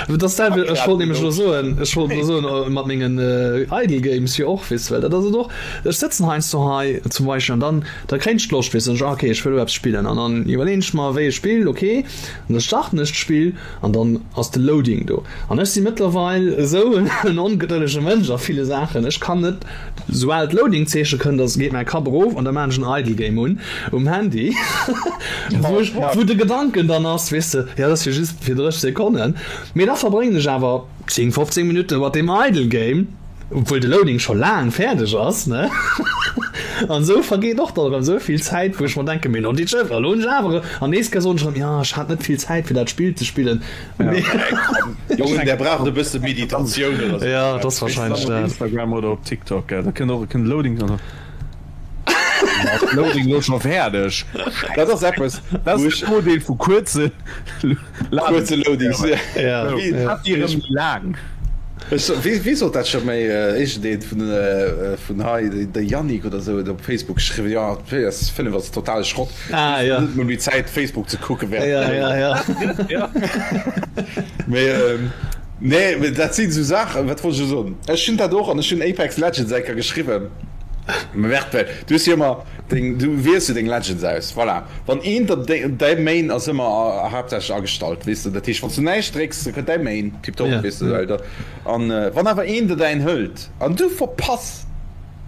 Dat ass dat, ech wollt nämlech elo soen, ech wollt elo soen, mat mengen Idle Games jo och, weess de, well dat ass et och, ech sëtzen heiansdo hei zum Beispill an dann, da kréien ech d'Loscht, weess de, dann ech, ah okay, ech wëll elo eppes spillen an dann iwwerleeën ech mer, wéi e Spill, okay, an da starten ech d'Spill an dann ass de Loading do an ech si mëttlerweil esou en ongedëllege Mënsch a ville Saachen, ech kann net Soubal d'Loading-Zeeche kënnt, da geet mäi Kapp erof an da maan ech en Idle Game un um Handy, wou ech, wou de Gedanken dann ass, weess de, jo dat ass jo just fir 30 Sekonnen, mee da verbréngen ech awer 10, 15 Minutte mat deem Idle Game, obwuel de Loading scho laang fäerdeg ass, ne? An esou vergeet och dann erëm esou vill Zäit, wou ech mer denken, mee noditschëff, elo hunn ech awer, an nees soen ech erëm, jo ech hat net vill Zäit fir dat Spill ze spillen. Jongen, der braucht e bësse Meditatioun oder sou. Ja, dat ass wahrscheinlech dat. Op Instagram oder op TikTok, gell? Da kënnt och e Loading. Loading lo scho fäerdeg. Dat ass eppes, Dat ass den Nodeel vu kuerze kuerze Loadings. Ja. Dat déi erëm méi laang. Wee sot dat scho méi? Iergendeen vun vun hei, de Yannick oder sou huet op Facebook geschriwwen, jo d'PS5 ass totale Schrott. Ah, ja. Net méi Zäit Facebook ze kucken während ja, ja, ja. ja. Mee, ähm, nee, mee dat sinn sou Saachen, wat wollt ech elo soen? Ech hunn dat och an ech hunn Apex Legends eng Kéier geschriwwen. Mä well du hues jo ëmmer deng, du wiels jo deng Legends aus, voilà. Wann een der däi Main ass ëmmer haaptsächlech agestallt, weess de, dat heescht wann s du näischt drécks, da kënnt däi Main, tiptop, Ja. weess de, well da, an wann awer een der däin hëlt an du verpass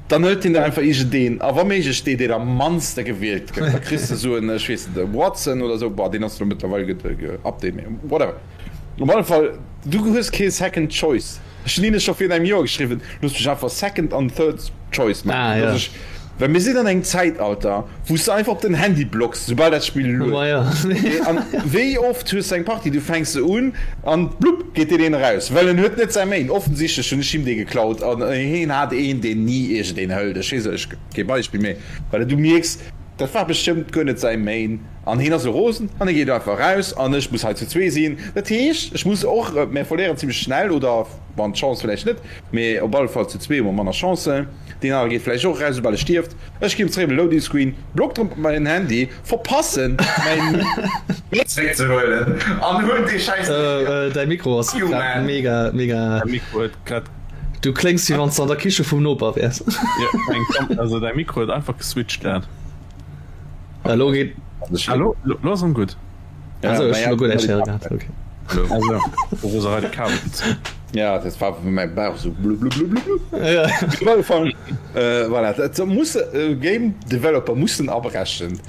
Dann hëlt hien der einfach iergendeen, a wa méiglech dee, deen am mannste gewielt gëtt. Da kriss de esou en, ech weess net, e Watson oder esou, bon, deen ass elo mëttlerweil geupdate, mee whatever. Op alle Fall, du hues kee Second Choice. Ech hunn hinne scho virun engem Joer geschriwwen, Loosst mech einfach Second an Third Choice maachen, dass ech, well mir sinn an engem Zäitalter, wou s de einfach op den Handy blocks, soubal dat Spill lued. An wéi oft hues de eng Partie, du fänks se un an blupp geet deen een eraus, well en huet net säi Main. Offensichtlech hunn ech him dee geklaut an heen hat een, deen ni iergendeen hëlt. Ech weess, ech kee Beispill, mee well du mierks, dat war bestëmmt guer net säi Main an heen ass elo rosen an hie geet einfach eraus an ech muss hei zu zwee sinn. Dat heescht, ech muss och, mir verléieren zimmlech schnell oder wann d'Chance vläicht net, mee op alle Fall zu zwee hu mer manner Chancen. Deen anere geet vläicht och eraus, soubal e stierft. Ech ginn zeréck op de Loading Screen, blockt erëm op mäin Handy, verpassen mäin Main zeréck ze huelen an hunn dee Schäiss net méi. Däi Mikro ass grad mega, mega. Däi Mikro huet grad. Du kléngs wéi wann s de an der Kiche vum Noper wäers. Jo, also däi Mikro huet einfach geswitcht grad. Elo geet. Elo, elo ass en gutt. Also, ech hunn elo guer näischt héiere gehat. Okay. Also, wo se hei de Kabel gezunn. Ja, dat war mäi Bauch sou blubblubblubblub. Ja. Op alle Fall, äh, voilà, dat muss äh, Game Developer mussen abrechen.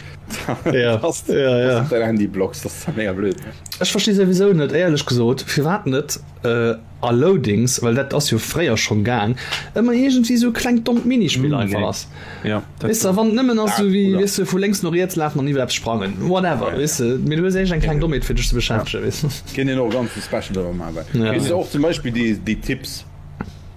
Ja, dass, ja, ja. dass du dein Handy blockst, das ist mega blöd. Ech versti souwisou net, éierlech gesot, firwat net äh, a Loadings, well dat ass jo fréier schonn gaang, ëmmer iergendwéi sou e klengt dommt Minispill einfach ass. Ja, dat Weess de, wann et nëmmen ass sou wéi, weess de, vu lénks no riets lafen an iwwer eppes sprangen, whatever, weess de, mee du hues éischt eng kleng Dommheet fir dech ze beschäftegen, weess de. Kéint een och e ganze Special driwwer maachen, well Ja. weess de och zum Beispill déi, déi Tipps,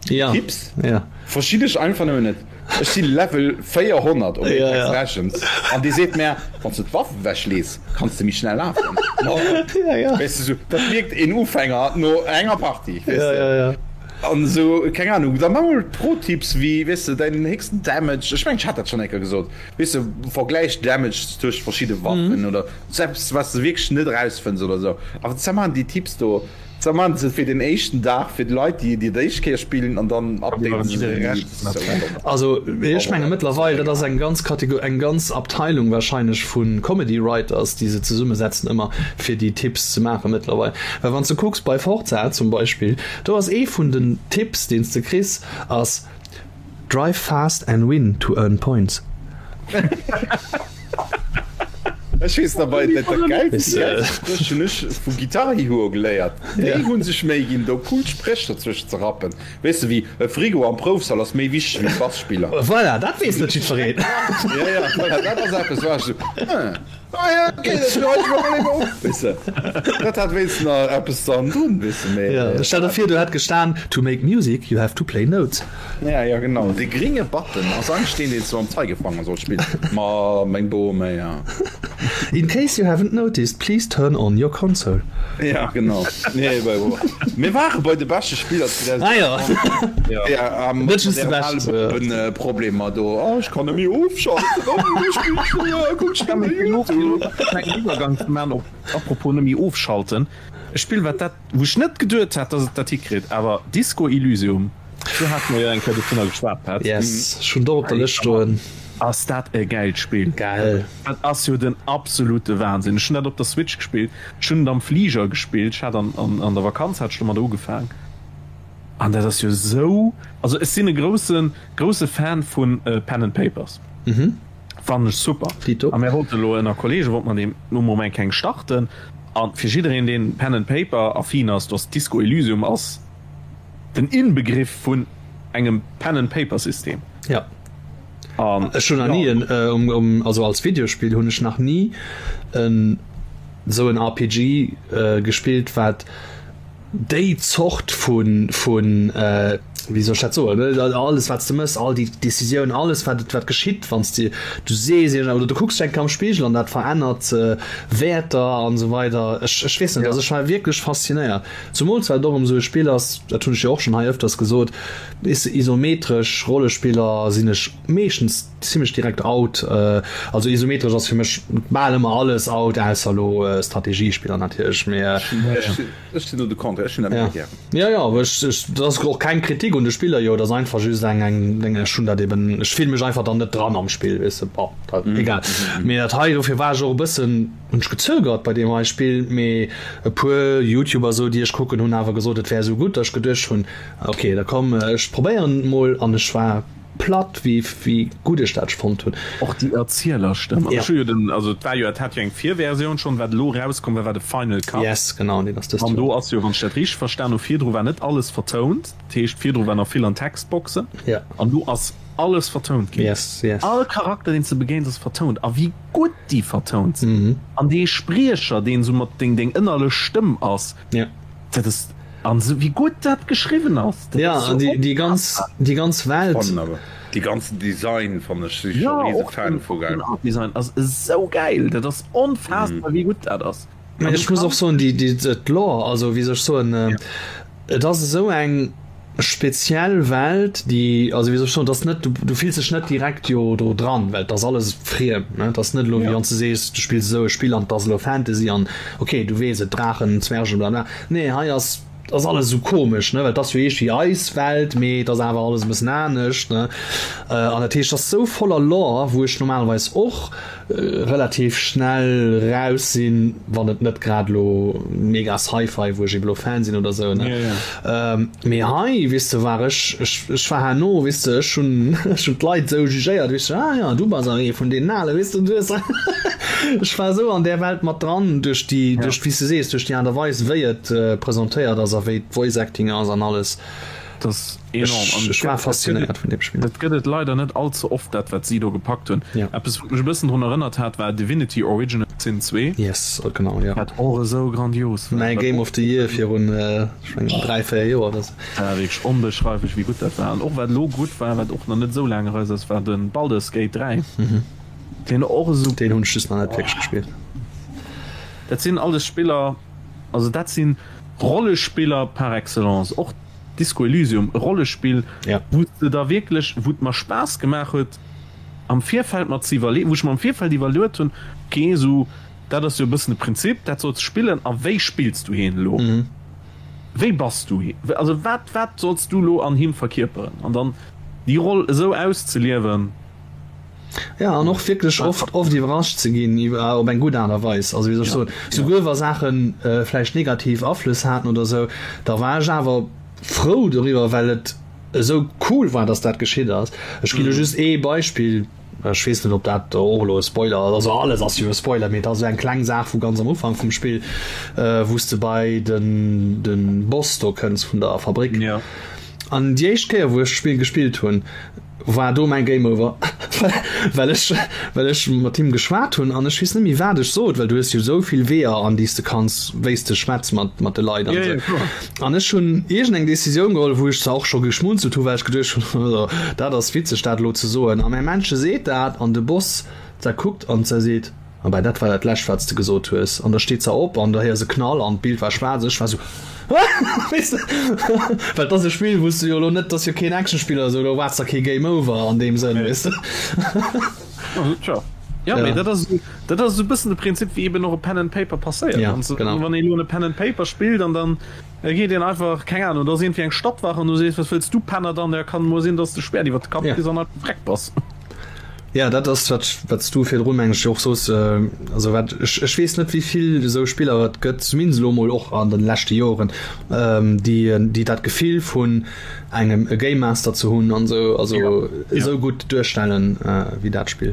Ja, Tipps ja. verstinn ech einfach nëmmen net. Ech si Level 400 op Ja, Apex ja. Legends an dee seet mär, wann s de d'Waff ewechlees, kanns de méi schnell lafen. Ja, ja. Weess de, sou, dat mierkt een Ufänger no enger Partie, weess Ja, de. ja, ja. An esou, keng Ahnung, da mol Pro-Tipps wéi, weess de, däin héchsten Damage, ech mengen ech hat dat schonn eng Kéier gesot, weess de, vergläich Damage tëscht verschidde Waffen oder sou eppes, wat s de wierklech net erausfënns oder sou. Awer da maachen déi Tipps do. Da maachen se et fir den éischten Dag fir d'Leit, déi déi d'éischt Kéier spillen an dann updaten se déi. Also ech menge mëttlerweil, dat ass eng ganz Kategor, eng ganz Abteilung wahrscheinlech vu Comedy Writers, déi se zesummesetzen ëmmer fir déi Tipps ze maache mëttlerweil. Well wann s de kucks bei Forza zum Beispill, do ass ee vun den Tipps, deen s de kriss, ass Drive fast and win to earn points. Ech weess nach bei dat dat gäilst déi gäilste Spréch hunn ech vu Guitar Hero geléiert. Déi hunn sech Méi ginn do cool Spréch dozwëscht ze rappen. Weess de wéi e Frigo am Proufsall ass méi wichteg wéi d'Basspiller. Voilà, dat weess net jiddwereen. Ja ja, voilà, dat ass eppes wou ech esou, hm. Ah ja, okay, dat schreiwe ech mer mol eben op, weess de. Dat hat wéinstens nach eppes dann drun, weess de, mee. Ja, stell der vir, do hätt gestan, To make music, you have to play notes. Ja, ja, genau. Dee gringe Button ass eigentlech deen, deen s du mam Zeigefanger solls spillen. Ma meng Bome, ja. In case you haven't noticed, please turn on your console. Ja, genau. Nee, bei, mir ware bei de beschte Spiller 2020. Ah ja. Ja, ähm, Net just de beschten. Äh, Problemer do. Oh, ech kann net méi ofschalten. Oh, ech spill schon, ja, guck schnell bei YouTube. Klengen Iwwergang ze man op apropos net méi ofschalten. E Spill wat dat wou ech net geduet hat dass et dat hikritt, awer Disco Elysium, do hate mer jo eng Kéier dovunner geschwat Pat. Yes, ech hunn et och op der Lëscht stoen. Ass dat e gäilt Spill. Gell. Dat ass jo den absolute Wahnsinn. Ech hunn dat op der Switch gespillt, ech hunn et am Fliger gespillt, ech hat an an der Vakanz hat ech domadder ugefaang an dat ass jo esou, also ech sinn e grousse grousse Fan vu Pen and Papers, fannen ech super. Dito. A mir wollte elo ënner Kollege wollte mer deem no Moment keng starten an fir jiddereen deen Pen and Paper affin ass, do ass Disco Elysium ass den Inbegriff vun engem Pen and Paper System. Ja. An ech hunn nach ni en um um also als Videospill hunn ech nach ni en esou en RPG gespillt wat déi Zort vun vun wéi soll ech dat soen alles wat s de mëss, all déi Décisioun, alles wat wat geschitt wann s de du sees iergend oder du kucks dech eng Kéier am Spigel an dat verännert Wäerter an esou weider. Ech ech weess net, also ech war wierklech faszinéiert, zumools well et och erëm esou e Spill ass, dat hunn ech jo och schonn hei ëfters gesot, Isometresch Rollespiller sinn ech meeschtens zimmlech direkt out. Also isometresch ass fir mech bal ëmmer alles out, ausser elo Strategiespiller natierlech. Mee Ech sinn do de Contraire, ech hunn dat méi gären. Jo, jo, awer ech, ech, dat ass och keng Kritik un de Spiller jo, dat ass einfach just eng, eng Deng, ech hunn dat eben, ech fille mech einfach dann net dran am Spill, weess de, bon, dat, egal. Mee dat hei, dofir war ech och e bëssen. Hunn ech gezögert bei deem hei Spill, mee e puer Youtuber sou déi ech kucken hunn awer gesot et wär sou gutt, datt ech geduecht hunn ok da komm ech probéieren et mol an ech war platt wéi wéi gutt ech dat fonnt hunn. Och déi Erzielerstëmm, an ech hu jo den, also et war jo, et hat jo eng Virversioun schonn, wat elo erauskomm war, war de Final Cut. Yes, genau, deen ass dëst An do ass jo, wann ech dat richteg verstan hu, virdru war net alles vertount, dat heescht virdru war nach vill an Textboxen, an elo ass alles vertount ginn. Yes, yes. All Charakter deen s de begéins ass vertount, a wéi gutt déi vertount sinn an dee Spriecher deen sou mat deng deng ënnerlech Stëmm ass, ja. dat ass an sou wéi gutt dat geschriwwen ass. Dat ja ass an déi déi ganz déi ganz Welt. Fannen awer déi ganzen Design fannen ech si ja, riese Fan vu geil. Den Art Design ass esou gäil, dat ass onfassbar wéi gutt dat ass. Ech muss och soen déi déi d'Lore, also wéi soll ech soen, et ass esou eng speziell Welt, déi, also wéi soll ech soen, et ass net, du fills dech net direkt jo do dran, well et ass alles friem, ne, et ass net elo wéi wann s de sees, du spills esou e Spill an et ass elo Fantasy an ok, du weess et, Draachen, Zwergen, bla bla. Nee, hei ass, ass alles esou komesch, ne, well et ass jo iergendwéi eis Welt, mee et ass awer alles e bëssen anescht, ne. An dat heescht, et ass esou voller Lore, wou ech normalerweis och relativ schnell raus sinn, wann et net grad elo mega Sci-Fi, wou ech eben elo Fan sinn oder sou, ne. Mee hei, weess de, war ech, ech, ech war herno, weess de, ech hunn, ech hunn d'Leit esou jugéiert, weess de, ah ja, du bass awer ee vun deenen Alen, weess de, du hues, ech war esou an där Welt mat dran duerch déi, duerch, wéi s de sees, duerch déi Aart a Weis, wéi et presentéiert ass a wéi d'Voice Acting ass an alles. Dat ass enorm. Ech, ech war faszinéiert vun deem Spill. Dat gëtt et leider net all ze oft, dat wat si do gepackt hunn. Ja. Eppes wat mech e bëssen drun erënnert hat, war Divinity Original Sin 2. Yes, genau, ja. Wat och esou grandios war. Mäi Game of the Year virun, ech mengen, 3, 4 Joer oder sou. Dat war wierklech onbeschreiflech wéi gutt dat war. An och wat elo gutt war, wat och nach net esou laang eraus ass, war de Baldur's Gate 3. Deen och esou. Deen hunn ech just nach net wierklech gespillt. Dat sinn alles Spiller, also dat sinn Rollespiller par excellence, och Disco Elysium, e Rollespill, ja. wou s de da wierklech, wou et mer Spaass gemaach huet am Virfeld mer ze iwwerlee, wou ech mer am Virfeld iwwerluet hunn, ok, esou dat ass jo e bëssen de Prinzip, dat solls de spillen a wéi spills du hien elo? Mhm. Wéi bass du? Also wat, wat solls du lo an him verkierperen? An dann déi Roll esou auszeliewen. Ja, an och wierklech oft, oft iwwerrascht ze ginn iwwer, op eng gutt Aart a Weis. Also wéi soll ech soen, souguer wa Saachen vläicht negativ Aflëss haten oder esou, da war ech awer frou doriwwer, well et esou cool war, dass dat geschitt ass. Ech ginn elo just ee Beispill. Ech weess net op dat och elo e Spoiler ass, also alles ass jo e Spoiler, mee et ass esou eng kleng Saach vu ganz am Ufank vum Spill, wou s de bei den den Boss do kënns vun der Fabrik. An déi éischt Kéier wou ech d'Spill gespillt hunn, war do mäin Game Over, well ech well ech mat him geschwat hunn an ech weess net méi wat ech sot, well du hues jo esou vill Weeër an déi s de kanns, wéi s de schwätz mat mat de Leit an esou. An ech hunn iergend eng Decisioun geholl, wou ech zwar och scho geschmunzelt hu well ech geduecht hunn, also dat ass witzeg dat elo ze soen. A mäi Männche seet dat an de Boss da kuckt an se seet, Ah ben dat war dat lescht wat s de gesot hues. An da steet se op an da héiers e Knall an d'Bild war schwaarz. Ech war sou, Weess de, well et ass e Spill wou s de jo elo net, et ass jo keen Actionspill oder sou, do erwaarts der kee Game Over an deem Sënn, weess de. Tja. Ja, mee dat ass dat ass esou e bëssen de Prinzip wéi eben och e Pen and Paper passéiert. Ja, genau. Wann ee lo e Pen and Paper spillt an dann geet een einfach, keng Ahnung, do ass iergendwéi eng Stadtwaach an du sees, was wëlls du Penner dann? Ja, kann emol sinn, dass de Schwert iwwer de Kapp kriss an einfach vreck bass. Ja, dat ass wat wat s du virdrun meng ech och soos, also wat ech ech weess net wéi vill esou Spiller et gëtt, zumindest elo emol och an de leschte Joren, déi déi dat Gefill vun engem e Game Master ze hunn an sou also ja. esou gutt duerstellen äh, wéi dat Spill.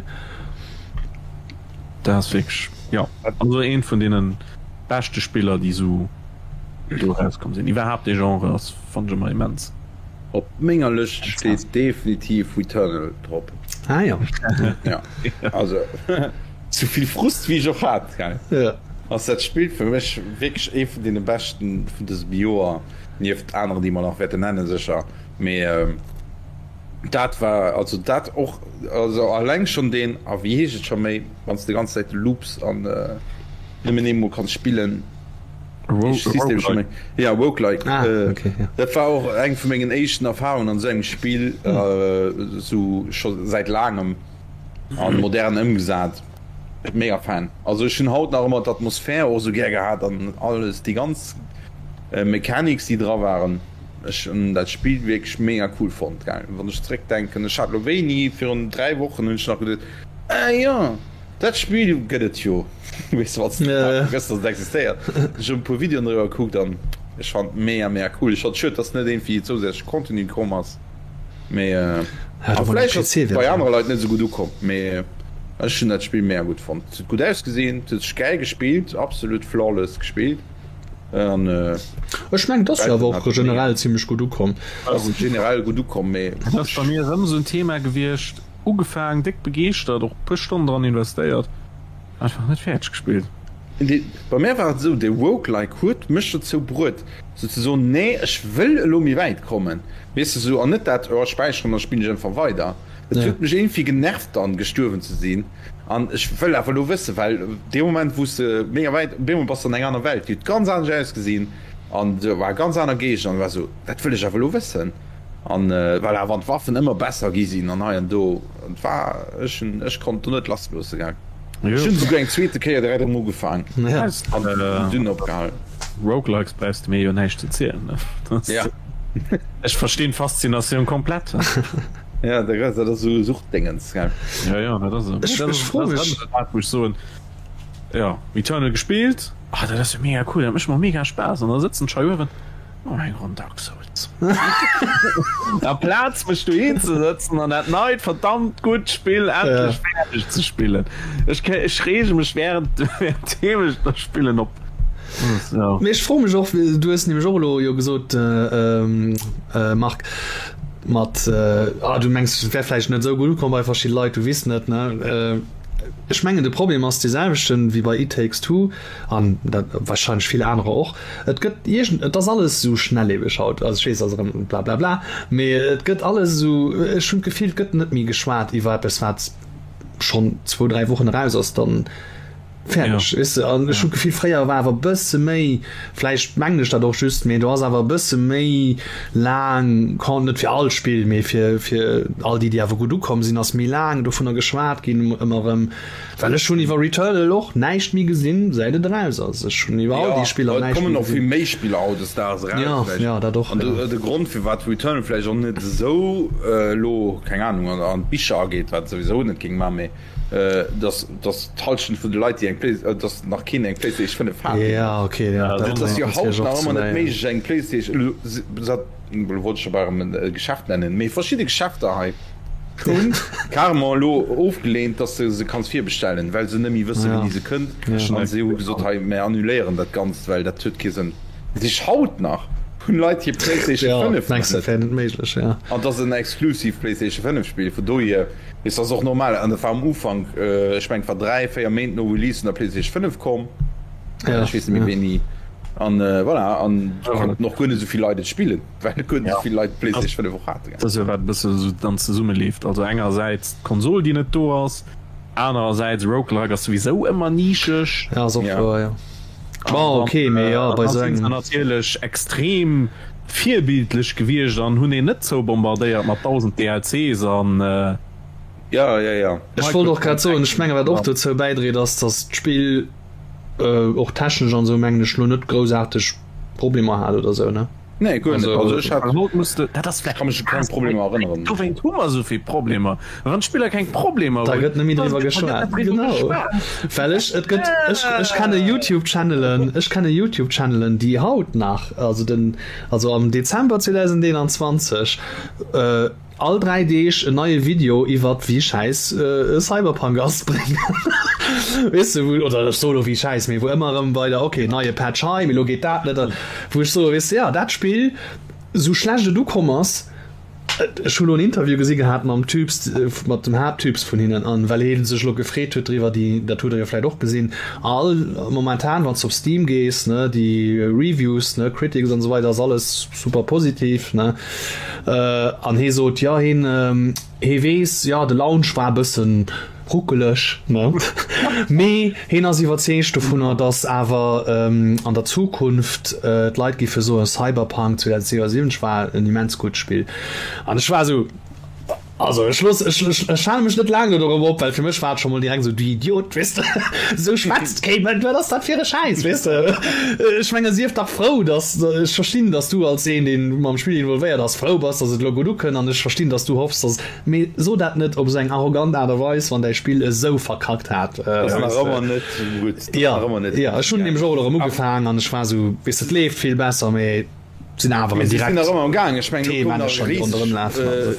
Dat ass wierklech ja also eent vun deenen beschte Spiller déi sou do rauskomm sinn. Iwwerhaapt dee Genre ass fannen ech ëmmer immens. Op menger Lëscht steet definitiv Returnal drop. Ah ja. Ja also souvill Frust wéi ech och hat gell ja. ass dat Spill fir mech wierklech ee vun deene beschten vun dësem Joer. Nieft aneren, déi mer nach wäerten nennen, sécher. Mee dat war, also dat och, also alleng schonn deen, a wéi heescht et scho méi, wann s de déi ganz Zäit loops an nëmmen eemol kanns spillen, System scho méi? Ja, Roguelike. Ah, okay, ja. Dat war och eng vu mengen éischten Erfarungen an esou engem Spill, esou scho säit laangem a modern ëmgesat. Mega Fan. Also ech hunn haut nach ëmmer d'Atmosphär och esou gär gehat an alles, déi ganz Mechanics déi dra waren, ech hunn dat Spill wierklech mega cool fonnt gell. Wann ech zeréck denken, ech hat lo wéini, virun 3 Wochen hunn ech nach geduet, ah jo, dat Spill gëtt et jo, weess de, wann s de vergëss dass et existéiert. Ech hunn e puer Videoen driwwer gekuckt an ech fand mega mega cool. Ech fand schued dass net iergendwéi zousätzleche Contenu komm ass, mee a vläicht ass et bei anere Leit net esou gutt ukomm, mee ech hunn dat Spill mega gutt fonnt. Et huet gutt ausgesinn, et huet sech gäil gespillt, absolut flawless gespillt. An, äh, Ech mengen, et ass jo awer och generell zimmlech gutt ukomm. Ass generell gutt ukomm, mee. Dat ass bei mir erëm esou en Thema gewiescht, ugefaang, déck begeeschtert, och e puer Stonnen dran investéiert, einfach net fäerdeg gespillt. Bei mär war et esou, de Roguelike huet mech dozou bruet, sou ze soen, nee, ech wëll elo méi wäit kommen, weess de, sou, an net dat, oh, ech späicheren, da spillen ech einfach weider. Et huet mech iergendwéi genervt dann, gestuerwen ze sinn. An ech wëll awer elo wëssen, well dee Moment wou s de mega wäit, op eemol bass de an enger aner Welt, déi huet ganz anescht ausgesinn an do war ganz aner Géigner an war esou, dat wëll ech awer elo wëssen. An voilà, wann d'Waffen ëmmer besser gi sinn an hei an do, et war, ech hunn, ech konnt do net lass loosse gell. Ech hunn esouguer eng zweete Kéier direkt erëm ugefaang an dunn opgehalen. Roguelikes brauchs de mir jo näischt ze zielen, ne? Ja. Ech verstinn d'Faszinatioun komplett. Ja, dat ass esou Suchtdéngens, gell? Ja, ja, dat ass et. Ech froe mech. Dat wou ech soen, jo, Returnal gespillt, ah, dat ass jo mega cool, dat mécht mer mega Spaass, an da sëtzen ech hei uewen, oh, eng Ronn Dark Souls. Amplaz mech dohin ze sëtzen an dat neit verdammt gutt Spill endlech fäerdeg ze spillen. Ech, ech reege mech während, währenddeem ech da spillen op. Mee ech froe mech och, du hues nämlech och elo jo gesot, Marc, mat ah du mengs et wär vläicht net esou gutt ukomm bei verschidde Leit, du weess net ne. Ech mengen de Problem ass dee selwechten wéi bei It Takes Two an dat wahrscheinlech vill anerer och, et gëtt iergend et ass alles esou schnelllebeg haut, also ech weess ass erëm blablabla, mee et gëtt alles esou, ech hunn d'Gefill et gëtt net méi geschwat iwwer eppes wat schonn zwou 3 Wochen eraus ass, dann. Fäerdeg, weess de. An ech hunn d'Gefill, fréier war awer e bësse méi, vläicht mengen ech dat och just, mee do ass awer e bësse méi laang, net fir all Spill, mee fir, fir all déi, déi awer gutt ukomm sinn, ass méi laang dovunner geschwat ginn ëmmer erëm. Well ech hunn iwwer Returnal och näischt méi gesinn, säit et eraus ass. Ech hunn iwwer all déi Spiller näischt méi gesinn. Et kommen och vill méi Spiller hautdesdaags eraus vläicht. Jo, jo, dat och, jo. An de Grond, firwat Returnal vläicht och net esou elo, keng Anung, an d'Bicher ageet, wat et souwisou net géing maachen, mee dass dass d'Halschent vun de Leit déi eng Play dass nach keen eng Playstation 5 hat. Ja okay ja, dat ass jo haut nach ëmmer net méiglech eng Playstation elo wollt ech scho bal erëm e Geschäft nennen, mee verschidde Geschäfter hei hunn carrément elo ofgeleent, dass de se kanns virbestellen, well se net méi wësse wéini se kënnt an se hu gesot hei mär annuléieren dat Ganzt, well dat huet kee Sënn. Dat heescht haut nach hunn Leit hir Playstation 5 nach net. An dat ass en exclusive Playstation 5 Spill, vun dohier. Ist ass och normal an dat war am Ufank, ech mengen et war 3, 4 Méint no Release vun der PlayStation 5 komm, ech weess net méi wéini an voilà an konnten och guer net esou vill Leit et spillen, well guer net esou vill Leit d'PlayStation 5 och haten. Dat ass jo wat e bësse esou dann zesummeleeft, also engersäits d'Konsol déi net do ass, anerersäits Roguelike ass souwisou ëmmer nischeg. Ja ass och wouer, jo. Bon ok, mee jo bei esou engem. Natierlech extrem Virbildlech gewiescht an hunn een net zoubombardéiert mat 1000 DLCs an. Ja, ja, ja. Ech wollt och grad soen, ech mengen wat och dozou bäidréit ass, datt d'Spill och technesch an esou mengen ech lo net groussaarteg Problemer hat oder esou ne? Nee, guer net. Also ech hat, Haut muss de, dat ass vläicht ka mech u keng Problemer erënneren. Dowéint hu mer esou vill Problemer. Wann d'Spiller keng Problemer Da gëtt net méi driwwer geschwat. Genau. Well ech, et gëtt, ech, ech kenne YouTube-Channelen, ech kenne YouTube-Channelen, déi haut nach, also den, also am Dezember 2021, äh, all 3 Deeg en neie Video iwwert wéi schäiss äh, Cyberpunk ass bréngen. Weess de, wou, oder ech soe lo wéi schäiss, mee wou ëmmer erëm weider, okay, neie Patch hei, mee lo geet dat net, wou ech soe, weess de, ja, dat Spill, sou schlecht et ukomm ass, Ech hu lo en Interview gesi gehat mam Typs, mat dem Haapttyps vun hinnen, an well hee sech lo gefreet huet driwwer, déi, dat hutt der jo vläit och gesinn, all momentan wann s de op Steam gees, ne, déi Reviews, ne, Critics an esou weider, ass alles super positiv, ne. An hee sot, jo heen, hee weess, jo de Launch war e bëssen Ruckeleg, ne? Mee heen ass iwwerzeegt dovunner, datt awer an der Zukunft d'Leit géife soen, Cyberpunk 2077 war en immens gutt Spill. An ech war esou, also ech looss, ech, ech, ech hale mech net laang do dorop op, well fir mech war et scho mol direkt esou, du Idiot, weess de, esou schwätzt kee Mënsch, wat ass dat fir e Schäiss, weess de? Ech menge sief dach frou, datt, ech verstinn, datt du als een, dee mam Spill involvéiert ass, frou bass, datt et elo gutt ukënnt an ech verstinn, datt du hoffs, datt Mee so dat net op esou eng arrogant Aart a Weis, wann däi Spill esou verkackt hat. Ass nach ëmmer net gutt. Jo, jo, ech hunn nämlech och elo erëm ugefaang an ech war esou, weess de, et leeft vill besser, mee et sinn awer erëm direkt. Si sinn nach ëmmer am gaang, ech mengen, elo koum nach e riseg,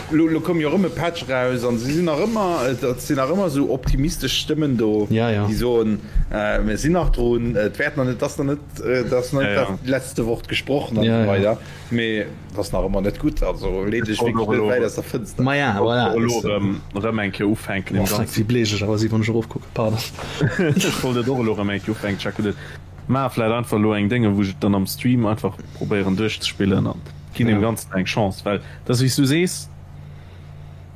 elo koum jo erëm e Patch eraus an si sinn nach ëmmer, et sinn nach ëmmer esou optimistesch Stëmmen do, déi soen, mir sinn nach drun, et wäert nach net, et ass nach net, et ass nach net dat letzte Wort gesprochen an esou weider. Mee et ass nach ëmmer net gutt, also leet dech wierklech net wäit aus der Fënster. Maja, voilà. Elo erëm, erëm eng Kéier ufänken. Oh freck, wéi bleech ech awer si wann ech erofkucken, pardon. Ech wollt et och elo erëm eng Kéier ufänken, Chuck, gutt, ech maache vläit einfach elo eng Dénge wou ech et dann am Stream einfach probéieren duerchzespillen an ginn deem Ganzen eng Chance, well et ass wéi s du sees,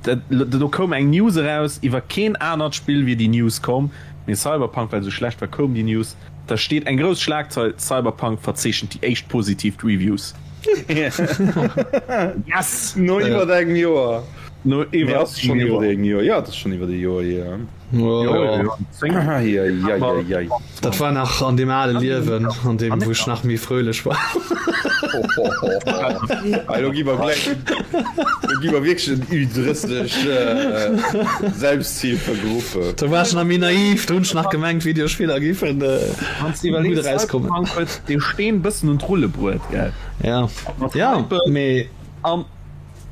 dat, do koum eng News eraus, iwwer keen anert Spill wier déi News komm, mee Cyberpunk, well esou schlecht war, koum déi News. Da steet eng grouss Schlagzeil, Cyberpunk verzeechent déi éischt positiv Reviews. Yes! No iwwer engem Joer. No iwwer engem Joer. Jo, et ass schonn iwwer e Joer hier. Dat war nach an deem ale Liewen, an deem wou ech nach méi fröhlech war. Elo gi mer gläich, elo gi mer wierklech en Ü30 Selbsthilfegruppe. Do war ech nach méi naiv, do hunn ech nach gemengt Videospiller géifen gutt erauskommen. Cyberpunk huet de Steen bëssen un d'Rulle bruet, gell? Ja, ja, mee. An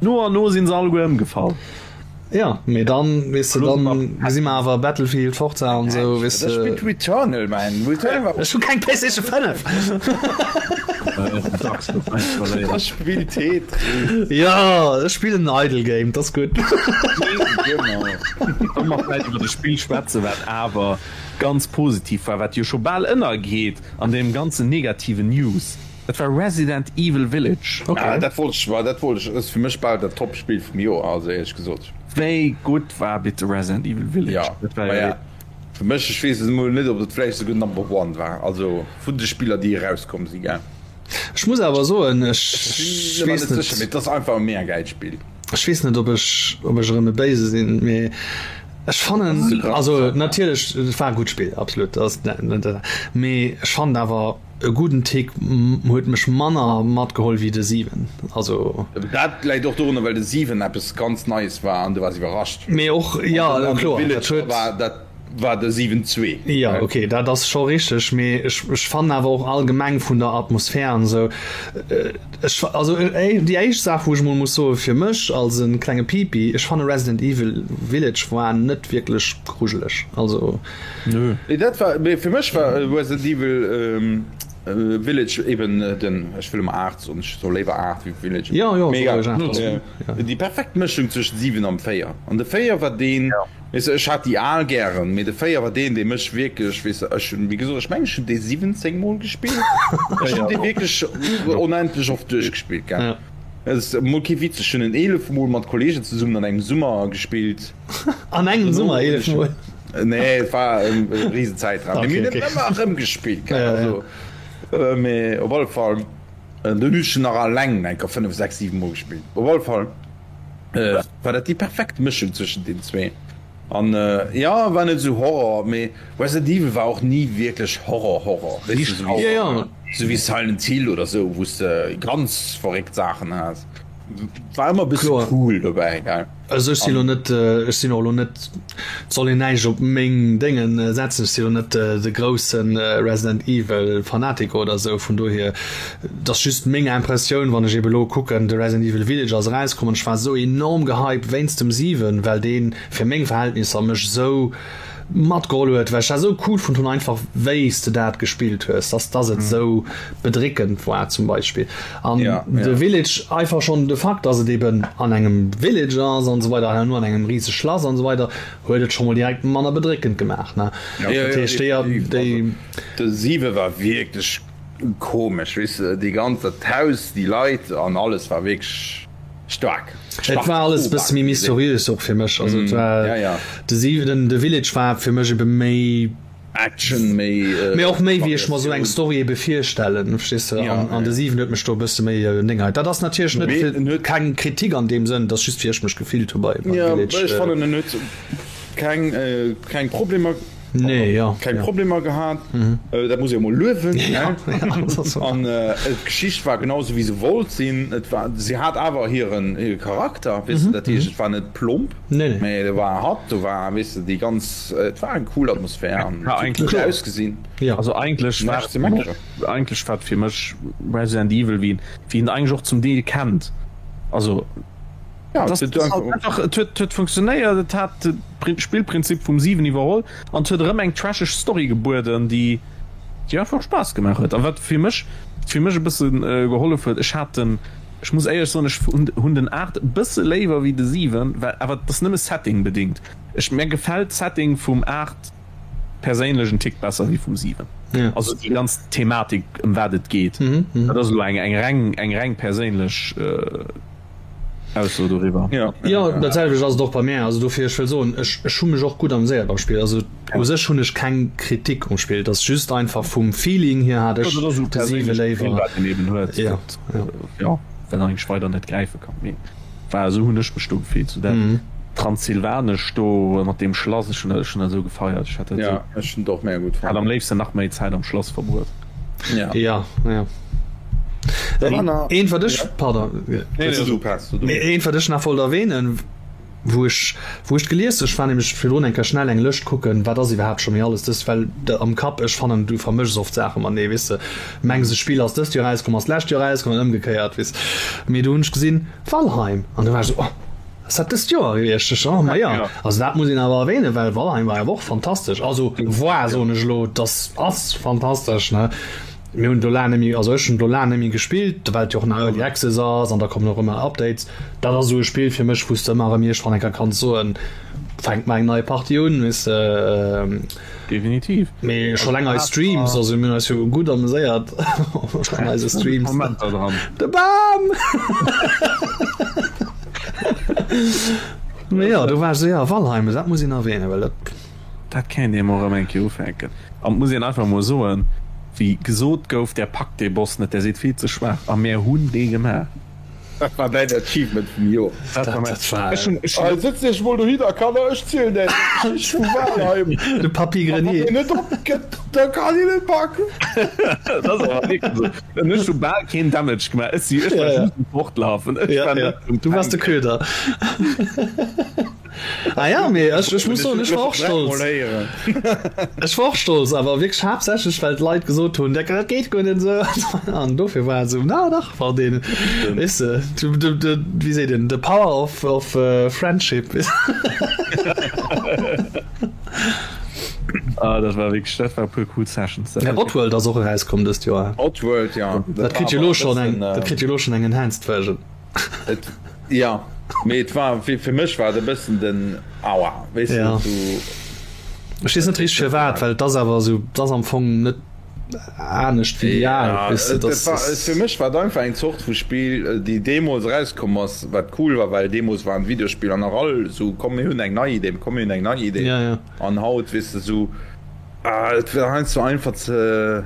No an no sinn se alleguer ëmgefall. Ja, mee dann, weess de, dann gesi mer awer Battlefield, Forza an esou, weess de. Ech spillt Returnal, man. Returnal war. Ech hu keng PlayStation 5! Ech spill Tetris. Ja, ech spillen en Idle Game, dat ass gutt. Genau. Solle mer vläicht iwwer e Spill schwätzen, wat awer ganz positiv war, wat jo scho bal ënnergeet an deem ganzen negativen News? Dat war Resident Evil Village. Okay. Ah, dat wollt ech, dat wollt ech, ass fir mech bal dat Top-Spill vum Joer, also éierlech gesot. Wéi gutt war bitte Resident Evil Village? Ja, dat war ja. Fir mech, ech weess et emol net, ob et vläicht esouguer Number One war, also vun de Spiller, déi erauskomm sinn, gell. Ech muss awer soen, ech weess net sécher, mee et ass einfach e mega gäilt Spill. Ech weess net, ob ech, ob ech erëm e Béise sinn, mee ech fannen, also natierlech, et war e gutt Spill, absolut, dat ass net, mee ech fannen awer e gudden Tick huet mech manner matgeholl wéi de 7, also. Dat läit och dorunner, well de 7 eppes ganz Neies war an du waars iwwerrascht. Mee och, jo, kloer, dat huet. Dat war de 7 zwee. Jo, ok, dat ass scho richteg, mee ech, ech fannen awer och allgemeng vun der Atmosphär an esou, ech, also déi éischt Saach wou ech emol muss soen, fir mech als e klenge Pipi, ech fanne Resident Evil Village war net wierklech grujeleg, also. Nö. Nee, dat war, mee fir mech war Resident Evil Village eben den, ech wëll ëmmer 8 soen, ech soe léiwer 8 wéi Village, Jo, jo, mee egal, déi perfekt Mëschung zwëschent 7 an 4, an de 4 war deen, Weess de, ech hat déi al gären, mee de 4 war deen, dee mech wierklech, weess de, ech hunn, wéi gesot, ech mengen, ech hunn dee 17 Mol gespillt. Ech hunn dee wierklech onendlech oft duerchgespillt, gell. Dat ass emol kee Witz, ech hunn en 11 Mol mat Kolleegen zesummen an engem Summer gespillt. An engem Summer 11 Mol? Nee, et war e risen Zäitraum, mee mir hunn en ëmmer erëm gespillt, gell. Also, mee op alle Fall, dunn hunn ech en nach alleng eng Kéier 5, 6, 7 Mol gespillt. Op alle Fall. War dat déi perfekt Mëschung zwëschen den zwee an jo war net esou Horror, mee Resident Evil war och ni wierklech Horror Horror, weess de, esou wéi Silent Hill oder esou wou s de ganz verréckt Saachen has, war ëmmer e bësse cool dobäi gell. Also ech si lo net, ech sinn och lo net, et soll een näischt op meng Déngen setzen, ech si lo net de grousse Resident Evil Fanatiker oder esou, vun dohier, et ass just meng Impressioun, wann ech ebe lo kucken, de Resident Evil Village ass erauskomm an ech war esou enorm gehypt wéinst dem 7, well dee fir meng Verhältnisser mech esou matgeholl huet, well ech dat esou cool fonnt hunn einfach wéi s de dat gespillt hues, dass dass et esou bedréckend war zum Beispill an ja, de ja. Village einfach schonn de Fakt, dass et eben an engem Village ass an esou weider an an engem riseg Schlass an esou weider huet et scho mol direkt manner bedréckend gemaach ne ja, ja, dat heescht déi déi De 7 war wierklech komesch, weess de, déi ganz dat Haus, déi Leit an alles war wierklech Staark. Et war alles e bësse méi mysteriös och fir mech. Also et war ja, ja. de siwenten, de Village war fir mech ebe méi Action, méi mee och méi wéi ech mer sou eng Story ebe virstellen, verstees de? Ja, An, an de ja. 7 huet mech do e bësse méi Ding hei. Dat ass natierlech net Mee fir en huet keng Kritik an deem Sënn, et ass just wéi ech mech gefillt hu bei beim Ja, Village. ech fannen en huet keng keng Problemer Nee, ja, keng ja. Problemer gehat. Dat muss ee mol luewen. Ja, ja, dat ass An d'Geschicht war genau sou wéi se wollt sinn. Et war, si hat awer hiren hire Charakter, weess de, dat heescht et war net plomp, Nee, nee. mee do war hatt, do war, weess de, déi ganz, et war eng cool Atmosphär an Ja, et huet eigentlech gutt ausgesinn. Ja. Also eigentlech war Näischt ze meckeren. eigentlech war et fir mech Resident Evil wéi wéi een eigentlech och zum Deel kennt. Also Ja, das, et das huet halt einfach, et huet, huet funktionéiert, et hat de Spillprinzip vum 7 iwwerholl an et huet erëm eng trasheg Story gebueden, déi déi einfach Spaass gemaach huet. A wat fir mech fir mech e bësse gehollef huet, ech hat den, ech muss éierlech soen, ech hunn hunn den 8 e bësse léiwer wéi de 7, well awer et ass nëmme Setting bedingt. Ech mär gefält d'Setting vum 8 perséinlech en Tick besser wéi vum 7. Ja. Also déi ganz Thematik ëm wat et geet, dat ass elo eng eng reng eng reng perséinlech Ausso doriwwer. Ja, ja, dat selwecht ass et och bei mär. Also dofir, ech wëll soen, ech, ech hu mech och gutt ameséiert beim Spill. Also u sech hunn ech keng Kritik um Spill. Et ass just einfach vum Feeling hier hat ech de 7 léiwer. Wat een eben huet, Ja, ja. ja, wat eigentlech weider net gräife kann. Mee war esou hunn ech mech do gefillt, sou dat Transsilvanesch do mat deem Schlass, ech hunn dat, ech hunn dat esou gefeiert. Ech hat dat Ja, esou, ech hunn et och mega gutt hat fonnt. am léifsten nach méi Zäit am Schlass verbruet. Ja. Ja, ja. Eent wat ech, pardon, eent wat ech nach wollt erwähnen, wou ech, wou ech gelies, ech war nämlech virdrun eng Kéier schnell eng Lëscht kucken, wat ass iwwerhaapt scho méi alles dëst, well de am Kapp, ech fannen du vermëschs oft Saache matenee, weess de, mengs e Spill ass dëst Joer erauskomm, ass d'lescht Joer erauskomm an ëmgekéiert, weess. Mee do hunn ech gesinn, Valheim, an du war ech esou, oh, ass dat dëst Joer gewiescht? Ech, oh, ma jo, also dat muss een awer erwähnen, well Valheim war awer och fantastesch, also war, soen ech elo, dass ass fantastesch, ne. Mir hunn do laang net méi, also ech hunn do laang net méi gespillt, well et jo och nach Early Access ass an da kommen och ëmmer Updates. Dat ass esou e Spill fir mech, wou s de ëmmer erëm iergendwann eng Kéier kanns soen, fänkt mar eng nei Partie un, weess de. Definitiv. Mee scho laang eis Streams, also mir hunn eis jo gutt ameséiert an eise Streams. Momenter dran. De Bam! Mee jo, do war ech esou, jo, Valheim, dat muss een erwähnen, well dat. Dat kéint ee mol erëm eng Kéier ufänken. An et muss een einfach mol soen, wéi gesot gouf, där packt dee Boss net, där seet vill ze schwaach. A mär hunn dee gemaach. Dat war däin Achievement vum Joer. Dat war mäin. Ech hunn, ech hunn. Sëtz iech mol dohinner, Kanner, ech zielen äech d'Geschicht vu Walheim. De Papy Grenier. A wann een net opgëtt, da kann een et packen. Dat ass awer wierklech esou. An ech hu bal keen Damage gemaach. Ech si, ech war just um Fortlafen. Ech war net um Du waars de Köder. Ah ja, mee ech, ech muss soen, ech war och stolz. Ech war och stolz, awer wierklech haaptsächlech, well d'Leit gesot hunn, dat geet guer net esou. An dofir war et esou, na dach, war deen, weess de, du, du, du, wéi seet een, the power of, of friendship. Ah, dat war wierklech, dat war e puer cool Sessions. Ja, Oddworld ass och erauskomm dëst Joer. Oddworld, ja. Dat kritt jo elo schonn eng, dat kritt jo elo schonn eng enhanced Version. Et, ja, mee et war, fir, fir mech war et e bëssen den Aua, weess de, ja. Du. Ech weess net richteg firwat, well et ass awer esou, et ass am Fong net anescht wéi déi al, Ja, weess de, et dass war, dass. fir mech war et einfach eng Zort vu Spill, déi deemools erauskomm ass, wat cool war, well deemools waren d'Videospiller nach all esou, komm mir hunn eng nei Idee, komm mir hunn eng nei Idee. Ja, ja. An haut, weess de, esou, ah, et war heiansdo einfach ze.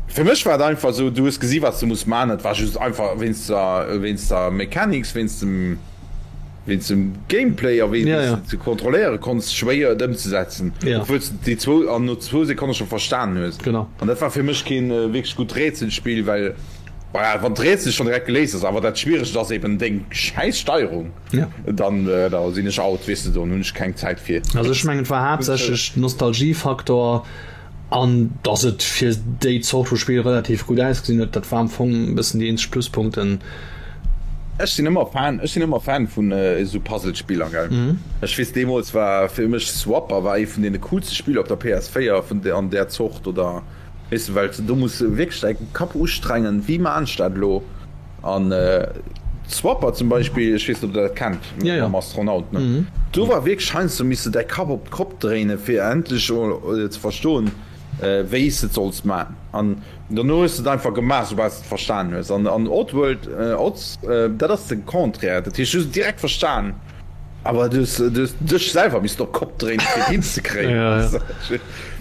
Fir mech war et einfach esou, du hues gesi wat s de muss man, et war just einfach wéinst der wéinst der Mechanics, wéinst dem wéinst dem Gameplay a wéi Ja, s ja. de ze kontrolléiere konns, schwéier et ëmzesetzen, Ja. obwuel s de déi zwou an no zwou Sekonne scho verstanen hues. Genau. An dat war fir mech keen wierklech gutt Rätselspill, well voilà, wann d'Rätsel schonn direkt geléist ass, awer dat Schwieregst ass eben deng schäiss Steierung, Ja. dann da sinn ech out, weess de, dann hunn ech keng Zäit fir. Also ech mengen et war haaptsächlech Nostalgiefaktor. An dass et fir déi Zort vu Spill relativ gutt ausgesinn huet, dat war am Fong e bëssen déi eenzeg Pluspunkten. Ech sinn ëmmer Fan, ech sinn ëmmer Fan vun esou Puzzle-Spiller, gell. Ech weess deemools war fir mech Swapper war ee vun deene coolste Spiller op der PS4 vun an där Zort oder weess de, well s de do muss wierklech däi Kapp ustrengen, wéi maan ech dat elo? An Swapper zum Beispill, ech weess net ob der dat kennt, mam Astronaut, ne? Do war wierklech heiansdo misst de däi Kapp op d'Kopp dréinen, fir endlech emol ze verstoen, wéi s de et solls man. An dono hues de et einfach gemaach, soubal s de et verstan hues. An Oddworld, Odds, dat ass de Contraire, dat heescht, du hues et direkt verstan, awer du hues dech selwer missten op d'Kopp dréinen, fir et hinzekréien,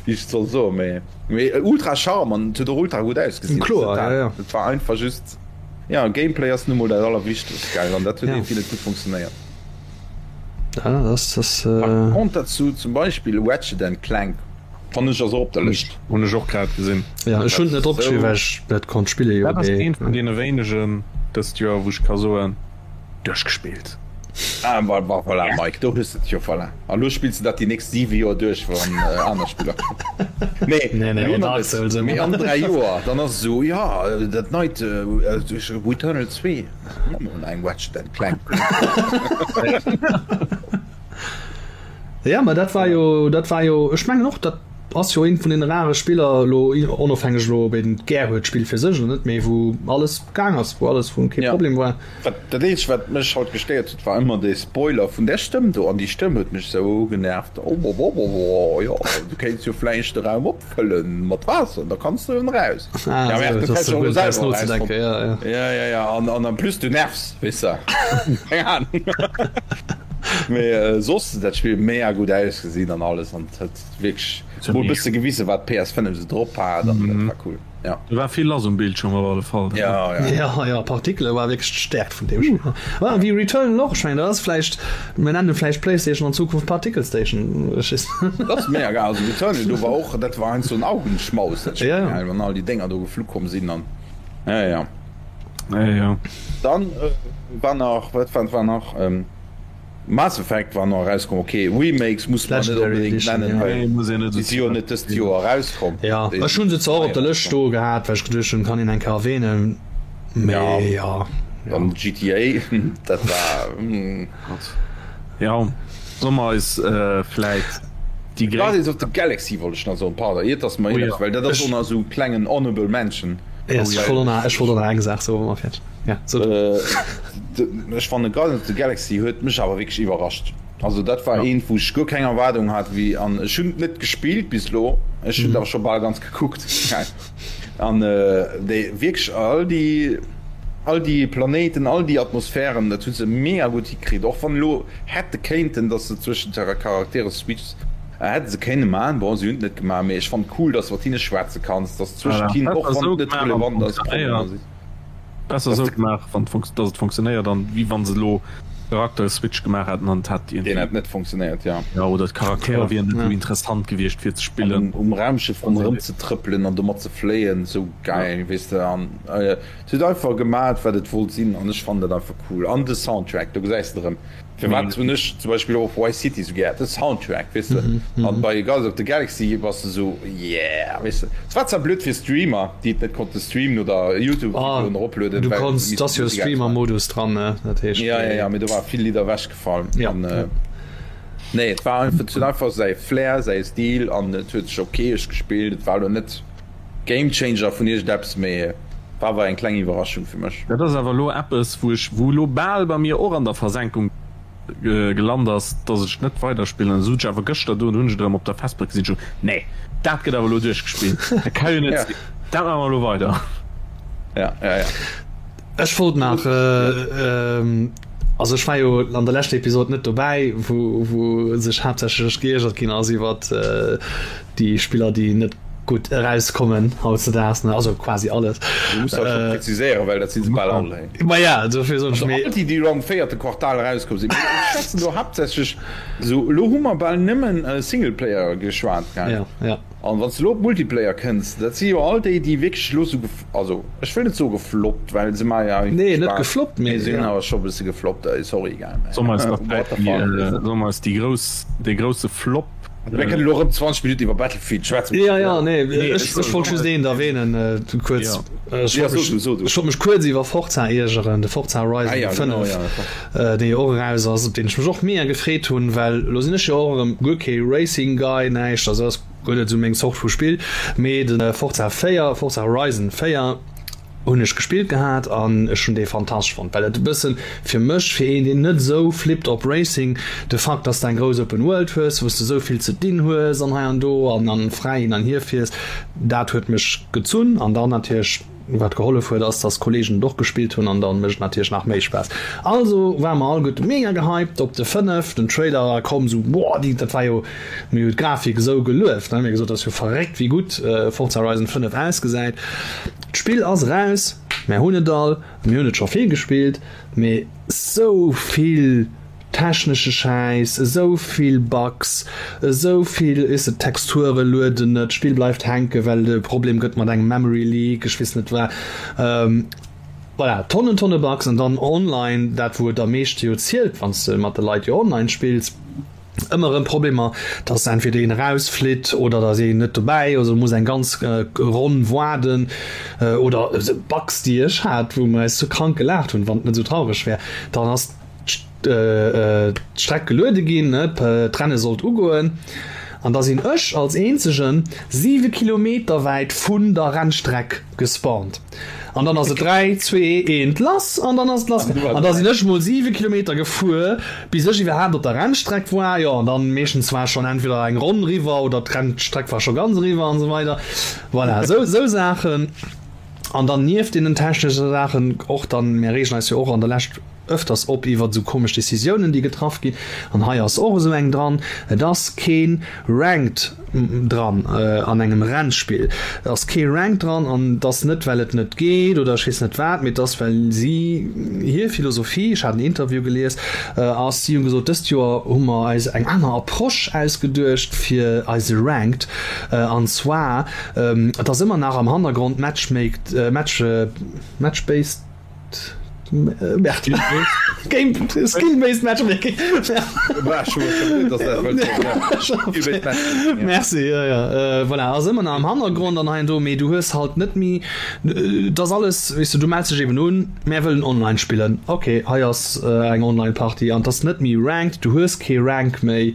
wéi ech et soll soen. Mee. Mee ultra charme an et huet och ultra gutt ausgesinn. Kloer, ja, ja. Et war einfach just, ja, Gameplay ass nu mol dat allerwichtegst, gell, an dat huet irgendwie net gutt funktionéiert. Ja, das, das, Par äh... contre dazu zum Beispill Ratchet and Clank fannen ech ass och op der Lëscht. Hunn ech och grad gesinn. Ja, ech hunn et net opgeschriwwen, well ech net konnt spillen, jo, Dat ass mee. eent vun deene wéinegen dëst Joer, wou ech ka soen, Duerchgespillt. Ah, voilà, Mike, do hues de et jo, voilà. A lo spills de dat déi nächst 7 Joer duerch, wann aner Spiller kommen. Nee, Nee, nee, elo nach Dark net. Souls ëmmer. Mee an 3 Joer, dann ass et esou, jo, dat neit Returnal 2, mol eng Ratchet and Clank. Ja, ma dat war jo, dat war jo, ech mengen och, dat ass jo eent vun den rare Spiller elo, onofhängeg elo, ob een et gär huet, d'Spill fir sech oder net, mee wou alles gaang ass, wou alles, wou kee Ja. Problem war. Wat, dat eenzegt wat mech haut gestéiert huet war ëmmer dee Spoiler vun där Stëmm do, an déi Stëmm huet mech sou genervt, oh jo du kéints jo vläicht de Raum opfëllen mat Waasser, da kanns du erëm eraus. Ah, Ja, sou, dat dass hätt du ech och guer net brauchs selwer nozedenken, erausfonnt. ja, ja. Ja, ja, ja, an, an en plus du nervs, weess de, keng Ahnung. Mee soss huet dat Spill mega gutt ausgesinn an alles an et huet wierklech mol e bësse gewisen wat d'PS5 sou drop hat an dat war cool. Ja. Do war vill lass um Bildschirm op alle Fall. Ja, ja. Ja, ja, Partikele war wierklech d'Stäerkt vun deem Spill. War wéi Returnal och, ech mengen, dat ass vläicht, mir nennen vläicht PlayStation an Zukunft Particle Station, ech weess net. Dat ass mega geil. Also Returnal, do war och, dat war heiansdo en Augenschmaus, dat Spill, Ja, ja. wann all déi Dénger do geflu komm sinn an, ja, ja. Ja, ja. Dann war nach, wat war nach? Mass Effect war nach erauskomm, ok Remakes muss man net onbedéngt nennen, well déi si jo net dëst Joer erauskomm. Jo, ech hunn se zwar och op der Lëscht stoe gehat, well ech geduecht hunn, kann een eng Kéier erwähnen, mee jo. Dann GTA, dat war. Jo, solle mer eis vläit déi gréisst. Guardians of the Galaxy wollt ech nach soen, pardon, iert dass mer, well dat ass och nach esou e klengen Honorable Mention. Ech wollt och nach eng Saach soen, wa mer fäerdeg. Ja, so. Ech fannen Guardians of the Galaxy huet mech awer wierklech iwwerrascht. Also dat war eent wou ech guer keng Erwaardung hat wéi an ech hunn et net gespillt bis elo, ech hunn et awer scho bal ganz gekuckt an déi wierklech all déi all déi Planéiten, all déi Atmosphären, dat hu se mega gutt hikritt, och wann elo hätte kéinten, datt se zwëschent de Charaktere switchs. Hätte se kéinne man, bon se hunn et net gemaach, mee ech fannen cool, dass de mat hinne schwätze kanns, dass zwëschent hinnen, och wann et net relevant ass, Problemer sinn. Besser esou gemaach, wann dass et funktionéiert, an wéi wann se elo Charakter-Switch gemaach hätten an et hätt iergendwéi. Deen hätt net funktionéiert, jo. Jo, oder d'Charaktere wieren net esou interessant gewiescht fir ze spillen. An um Raumschëff ronderëm ze trëppelen an domat ze fléien, esou gäil, weess de. An et huet einfach gemaat wat et wollt sinn an ech fannen dat einfach cool. An de Soundtrack, do gesäis de erëm. Firwat hunn ech zum Beispill och Vice City sou gär? De Soundtrack, weess de. An bei Guardians of the Galaxy bass de sou, yeah, weess de. Et war zwar blöd fir Streamer, déi et net konnte streamen oder Youtube-Videoen eroplueden, Du konns, et ass jo e Streamer-Modus dran, ne? Dat heescht. Ja, ja, ja, mee do ware vill Lidder ewechgefall. Ja. An, nee, et war einfach, et huet einfach säi Flair, säi Stil an et huet sech okeesch gespillt. Et war elo net Gamechanger vun iergendeppes, mee war awer eng kleng Iwwerraschung fir mech. Dat ass awer elo eppes, wou ech, wou elo bal bei mir och an der Versenkung gelant ass, dass ech net weiderspillen. An da sot ech awer gëschter do, hunn ech et erëm op der Festplack gesinn, ech sot, nee, dat gëtt awer elo duerchgespillt, dat ka jo net sinn, dat maache mer elo weider. Ja, ja, ja. Ech wollt nach, also ech war jo an der leschter Episod net dobäi, wou, wou sech haaptsächlech geiergert ginn ass iwwert déi Spiller, déi net gutt erauskommen hautzedaags, ne, also quasi alles. Du muss dat scho präziséieren, well dat si se bal all. Ma ja, dofir soen ech, Also all déi, déi elo am véierte Quartal erauskomm sinn. Mee ech schwätzen do haaptsächlech esou, elo hu mer bal nëmmen Singleplayer geschwat, gell? Ja, ja. An wann s de elo op Multiplayer kënns, dat si jo all déi, déi wierklech elo sou, also ech wëll net soe gefloppt, well se maache jo eigentlech Nee, net Spaass, gefloppt, mee mee se hunn awer scho e bësse gefloppt, sorry, gell, mä Solle mer eis nach what the fuck. Solle mer eis déi grouss, dee grousse Flop. Mir kënnen elo erëm 20 Minutten iwwer Battlefield schwätzen. Jo, jo, nee, ech wollt just eent erwähnen, kuerz. Ech wollt mech kuerz iwwer Forza iergeren, de Forza Horizon 5, dee jo och eraus ass, op deen ech mech och mega gefreet hunn, well elo sinn ech jo och erëm guer kee Racing Guy, näischt, also ass guer net esou meng Zort vu Spill, mee de Forza 4, Forza Horizon 4 hunn ech gespillt gehat an ech hunn dee fantastesch fonnt, well et e bëssen fir mech, fir een deen net esou flippt op Racing, de Fakt dass de eng grouss Open World hues, wou s de esou vill ze dinn hues an hei an do an an fräi hin an hier fiers, dat huet mech gezunn an dann natierlech Wat gehollef huet ass dass Kollegen et och gespillt hunn an dann mécht et natierlech nach méi Spaass. Also ware mer all gutt mega gehypt op de 5, den Trailer war komm sou boah déi dat war jo, mir hu d'Grafik esou gelueft ne, mir gesot dat ass jo verréckt wéi gutt Forza Horizon 5 ausgesäit. D'Spill ass eraus, mär hunn et all, mir hunn et scho vill gespillt, mee sou vill Technesche Schäiss, esou vill Bugs, esou vill, weess de, d'Texture lueden net, d'Spill bleift hänken, well et e Problem gëtt mat engem Memory Leak, ech weess net wat. Voilà, Tonnen, Tonne Bugs an dann online, dat wou et am meeschte jo zielt, wann s de mat de Leit jo online spills, ëmmer erëm Problemer, dass entweder een erausflitt oder dass een net dobäi ass, oder muss eng ganz Ronn waarden oder Bugs, déi ech hat, wou mer eis sou krank gelaacht hunn, wann et net esou traureg wär, dann ass d'Streck geluede ginn, d'Renne sollt ugoen an da sinn ech als eenzegen 7 Kilometer wäit vun der Rennstreck gespawnt an dann ass et 3, 2, 1 lass an dann ass et lass an da sinn ech mol 7 Kilometer gefuer bis ech iwwerhaapt op der Rennstreck war, jo an dann meeschtens war schonn entweder eng Ronn eriwwer oder d'Rennstreck war scho ganz eriwwer an esou weider. Voilà, esou Saachen an dann nieft deenen technesche Saachen och dann, mir reegen eis jo och an der Lescht ëfters op iwwert esou komesch Decisiounen, déi getraff ginn. An hei ass och esou eng dran. Et ass kee Ranked dran an engem Rennspill. Et ass kee Ranked dran an et ass net, well et net geet oder ech weess net wat, mee et ass, well si hir Philosophie, ech hat en Interview gelies, ass, si hu gesot, dëst Joer hu mer eis eng aner Approche ausgeduecht fir eise Ranked. An zwar, et ass ëmmer nach am Hannergrond Matchmaked, Match, Match-based, Skill-based Matchmaking. Merci, ja, ja. Äh, voilà, ass ëmmer nach am Hannergrond an hei an do, mee du hues halt net méi, et ass alles, weess du, du mells dech eben un, mär wëllen online spillen, okay, hei ass eng Online-Partie an et ass net méi ranked, du hues kee Rank méi.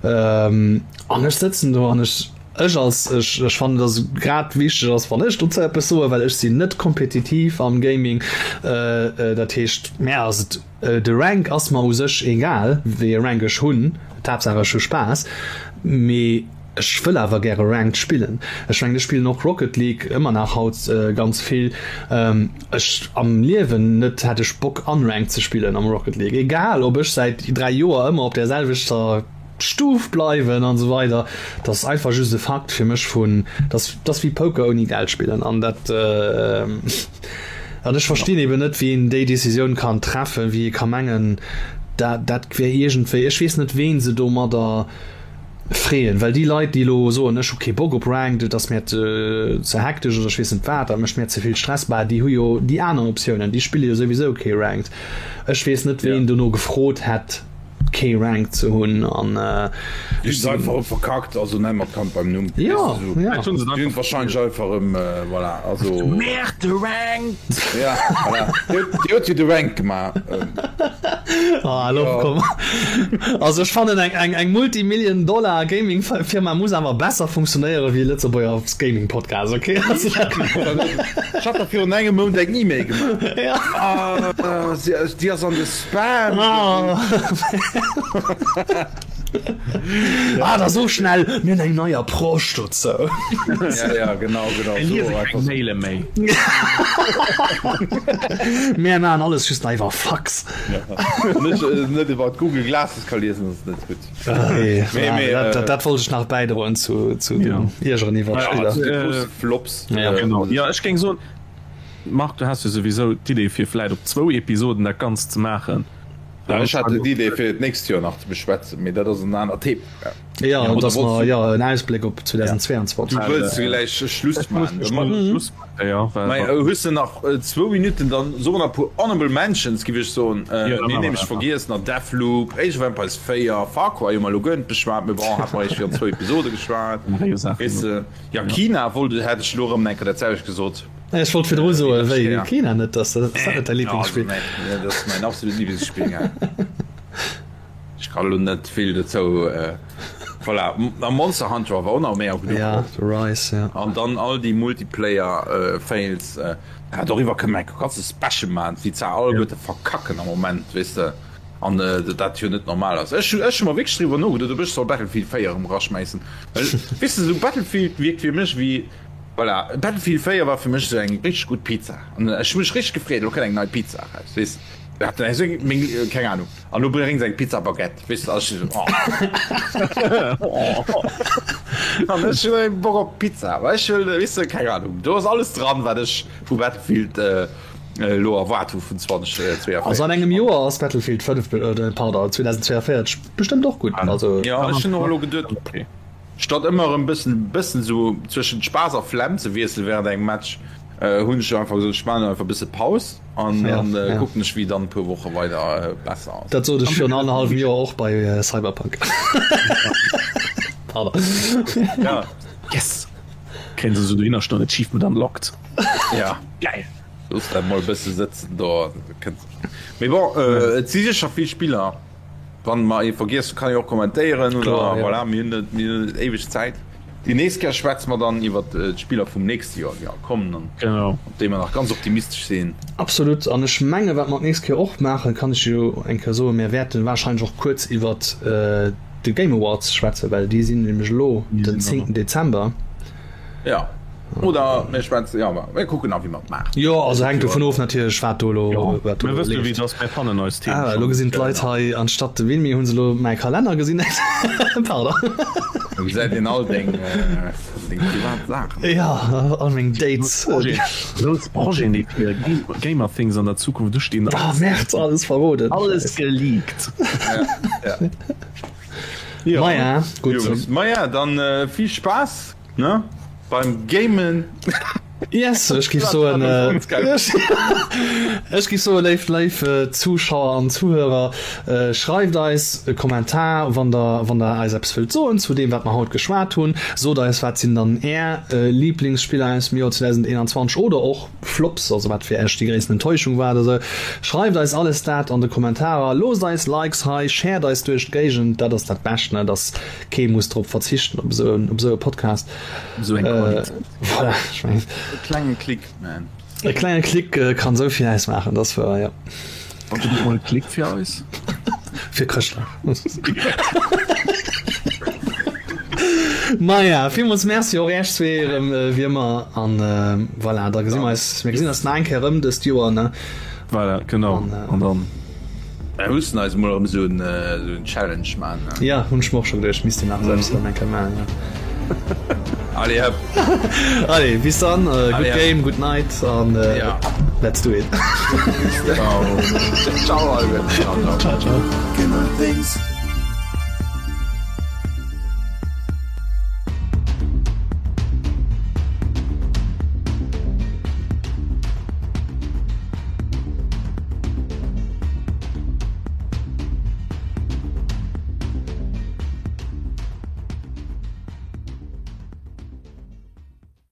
Ähm, an ech sëtzen do an ech. Ech als, ech, ech fannen, dass et grad wichteg ass, wann ech dozou eppes soen, well ech sinn net kompetitiv am Gaming. Dat heescht, mär ass et, de Rank ass mer u sech egal, wéi e Rank ech hunn, d'Haaptsaach ech hu Spaass. Mee ech wëll awer gäre Ranked spillen. Ech mengen, ech spillen och Rocket League ëmmer nach haut ganz vill. Ech am Liewen net hätt ech Bock unranked ze spillen am Rocket League, egal ob ech säit 3 Joer ëmmer op där selwechter. Stuf bleiwen an esou weider. Dat ass einfach just e Fakt fir mech vun, dat ass wéi Poker ouni Geld spillen an dat an ech verstinn eben net, wéi een déi Decisioun kann treffen, wéi ee ka mengen, dat dat wär iergendwéi, ech weess net ween se domadder freeën, well déi Leit déi elo soen, ech hu kee Bock op Ranked, et ass mir ze ze hektesch oder ech weess net wat, dat mécht mir ze vill Stress, bah déi hu jo déi aner Optiounen, déi spille jo souwisou kee Ranked. Ech weess net ween dono gefrot hätt. Kee Rank ze hunn an Déi hunn se einfach erëm verkackt, also nenn mer d'Kand beim Numm. Jo, jo. Déi hunn et wahrscheinlech einfach erëm, voilà, also. Merde, de Rank! Ja, voilà. Déi huet jo de Rank gemaach. Ah, elo komm. Also ech fannen eng, eng, eng Multimillion Dollar Gaming Firma muss awer besser funktionéiere wéi e Lëtzebuerger Gaming Podcast, okay? Ech hat der virun engem Mount eng E-Mail gemaach. Ja. Ah, déi ass an de Spam. Ah, da so schnell, mir hunn eng nei Approche dozou. Ja, ja, genau, genau. Mir liese keng Maile méi. Mir maachen alles just nach iwwer Fax. Wann ech net iwwer Google Glasses ka liesen, ass et net gutt. Nee, mee, dat, dat wollt ech nach bäidroen zu, zu ja. den Iergeren iwwer ja, Spiller. Flops. Ja, genau. Ja, ech géing soen, Marc, du has jo souwisou d'Idee fir vläit op zwou Episoden dat Ganzt ze maachen. Ja, ech hat d'Idee fir et d'nächst Joer nach ze beschwätzen, mee dat ass en anert Thema. Ja, ja dass mer ja en Ausbléck op 2022. Du wëlls gläich Schluss maachen. Schluss maachen, ja. Mä hues de nach zwou Minutten, dann soe mer nach e puer Honorable Mentions, giff ech soen. Mir hunn nämlech vergiess nach Deathloop, Age of Empires 4, Far Cry hu mer elo guer net beschwat, mee bon, hat mer eréischt virun zwou Episode geschwat. Weess de, ja Kina wollt, hätt ech elo erëm eng Kéier dat selwecht gesot. Ech wollt virdru soen, wéi, Kina net, ass dat net däi Liblingsspill? Dat ass mäin absolut Liblingsspill, ja. Ech kann elo net vill dozou, voilà. A Monster Hunter war och nach méi a genuch. Ja, The Rise, ja. An dann all déi Multiplayer Fails, ja doriwwer kënne mer e ganze Special maachen, wéi se alleguerte verkacken am Moment, weess de, an dat jo net normal ass. Ech hu mer wierklech driwwer nogeduet, ob ech soll Battlefield 4 erëm eraschmäissen, well weess de, esou Battlefield wierkt fir mech wéi, voilà, Battlefield 4 war fir mech esou eng richteg gutt Pizza an ech hu mech richteg gefreet, elo kënnt eng nei Pizza eraus, weess de. Keng Ahnung. An du bréngs eng Pizza Baguette, weess de, ech esou, oh. An ech hunn eng Bock op Pizza, well ech wëll, weess de, keng Ahnung, do ass alles dran, wat ech vu Battlefield elo erwaart hu vun 2042. Also an engem Joer ass Battlefield 5, pardon, 2042 bestëmmt och gutt, also. Jo, ech hunn och elo geduet, Statt ëmmer erëm bëssen bëssen sou zwëschent Spaass a Flemm ze wiesselen während engem Match, hunn ech einfach gesot, ech maachen einfach bësse Paus an dann kucken ech wéi dann e puer Woche weider besser ass. Dat sot ech virun annerhallwem Joer och bei Cyberpunk. Pardon. Ja. Yes! Kréien se sou dohinner stoen, Achievement unlocked. Ja. Geil! Looss dat mol bësse sëtzen do. Mee bon, et si sécher vill Spiller. Wann mer ee vergiess hunn, kann ee och kommentéieren oder Kloer, ja. voilà, mir hunn net, mir hunn net éiweg Zäit. Déi nächst Kéier schwätze mer dann iwwert d'Spiller vum nächste Joer, déi all kommen an Genau. op déi mer nach ganz optimistesch sinn. Absolut. An ech menge wat mer d'nächst Kéier och maachen, kann ech jo eng Kéier soen, mir wäerte warscheinlech och kuerz iwwert de Game Awards schwätzen, well déi sinn nämlech elo den 10. Dezember. Ja. Oder mir schwätzen, ja, mir kucken nach, wéi mer et maachen. Jo, also hänkt dovun of natierlech, wat do elo, wat do Mir elo wësse wéi leeft. et ass, mir fannen eis Themen Ah, elo schonn. gesinn d'Leit hei, anstatt de Wilmi hu se elo mäi Kalenner gesinn. Pardon. Do gesäit een all deng, deng privat Saachen. Ja, all meng Dates. Grouss Projeten, déi fir Gamerthings an der Zukunft ustinn. Ah, Merde, alles verroden. Alles geleakt. Ja, ja. Jo. Maja, gutt. Jungs, maja, dann vill Spaass. Ne? Beim Gamen. Yes, ech giff soen, ech giff soen, léif, léif Zuschauer an Zuhörer, schreift eis e Kommentar, wann der, wann der eis eppes wëllt soen zu deem, wat mer haut geschwat hunn. Sot eis, wat sinn dann Är Liblingsspiller aus dem Joer 2021 oder och Flops, also wat fir Iech déi gréissten Enttäuschung war oder sou. Schreift eis alles dat an de Kommentarer, loosst eis Likes hei, shared eis duerch d'Géigend, dat ass dat Bescht, ne, dass Kee muss drop verzichten op esou op esou e Podcast. Esou eng Qualitéit. Voilà, ech mengen. E klenge Klick, man. E klenge Klick kann esou vill ausmaachen, dat ass wouer, jo. Wann du mol e Klick fir eis? Fir Chrëschtdag. Maja, villmools Merci och Iech zwee erëm wéi ëmmer an voilà, da gesi mer eis, mir gesinn eis nach eng Kéier erëm dëst Joer, ne? Voilà, genau. An dann. Mir mussen eis mol erëm esou en Challenge man. Ja, hunn ech mer och scho geduecht, misst een nach selbst erëm eng Kéier man, ja. Allez hëpp. Allez, bis dann, good game, good night an let's do it. Ciao. Ciao, Alvin. Ciao, ciao.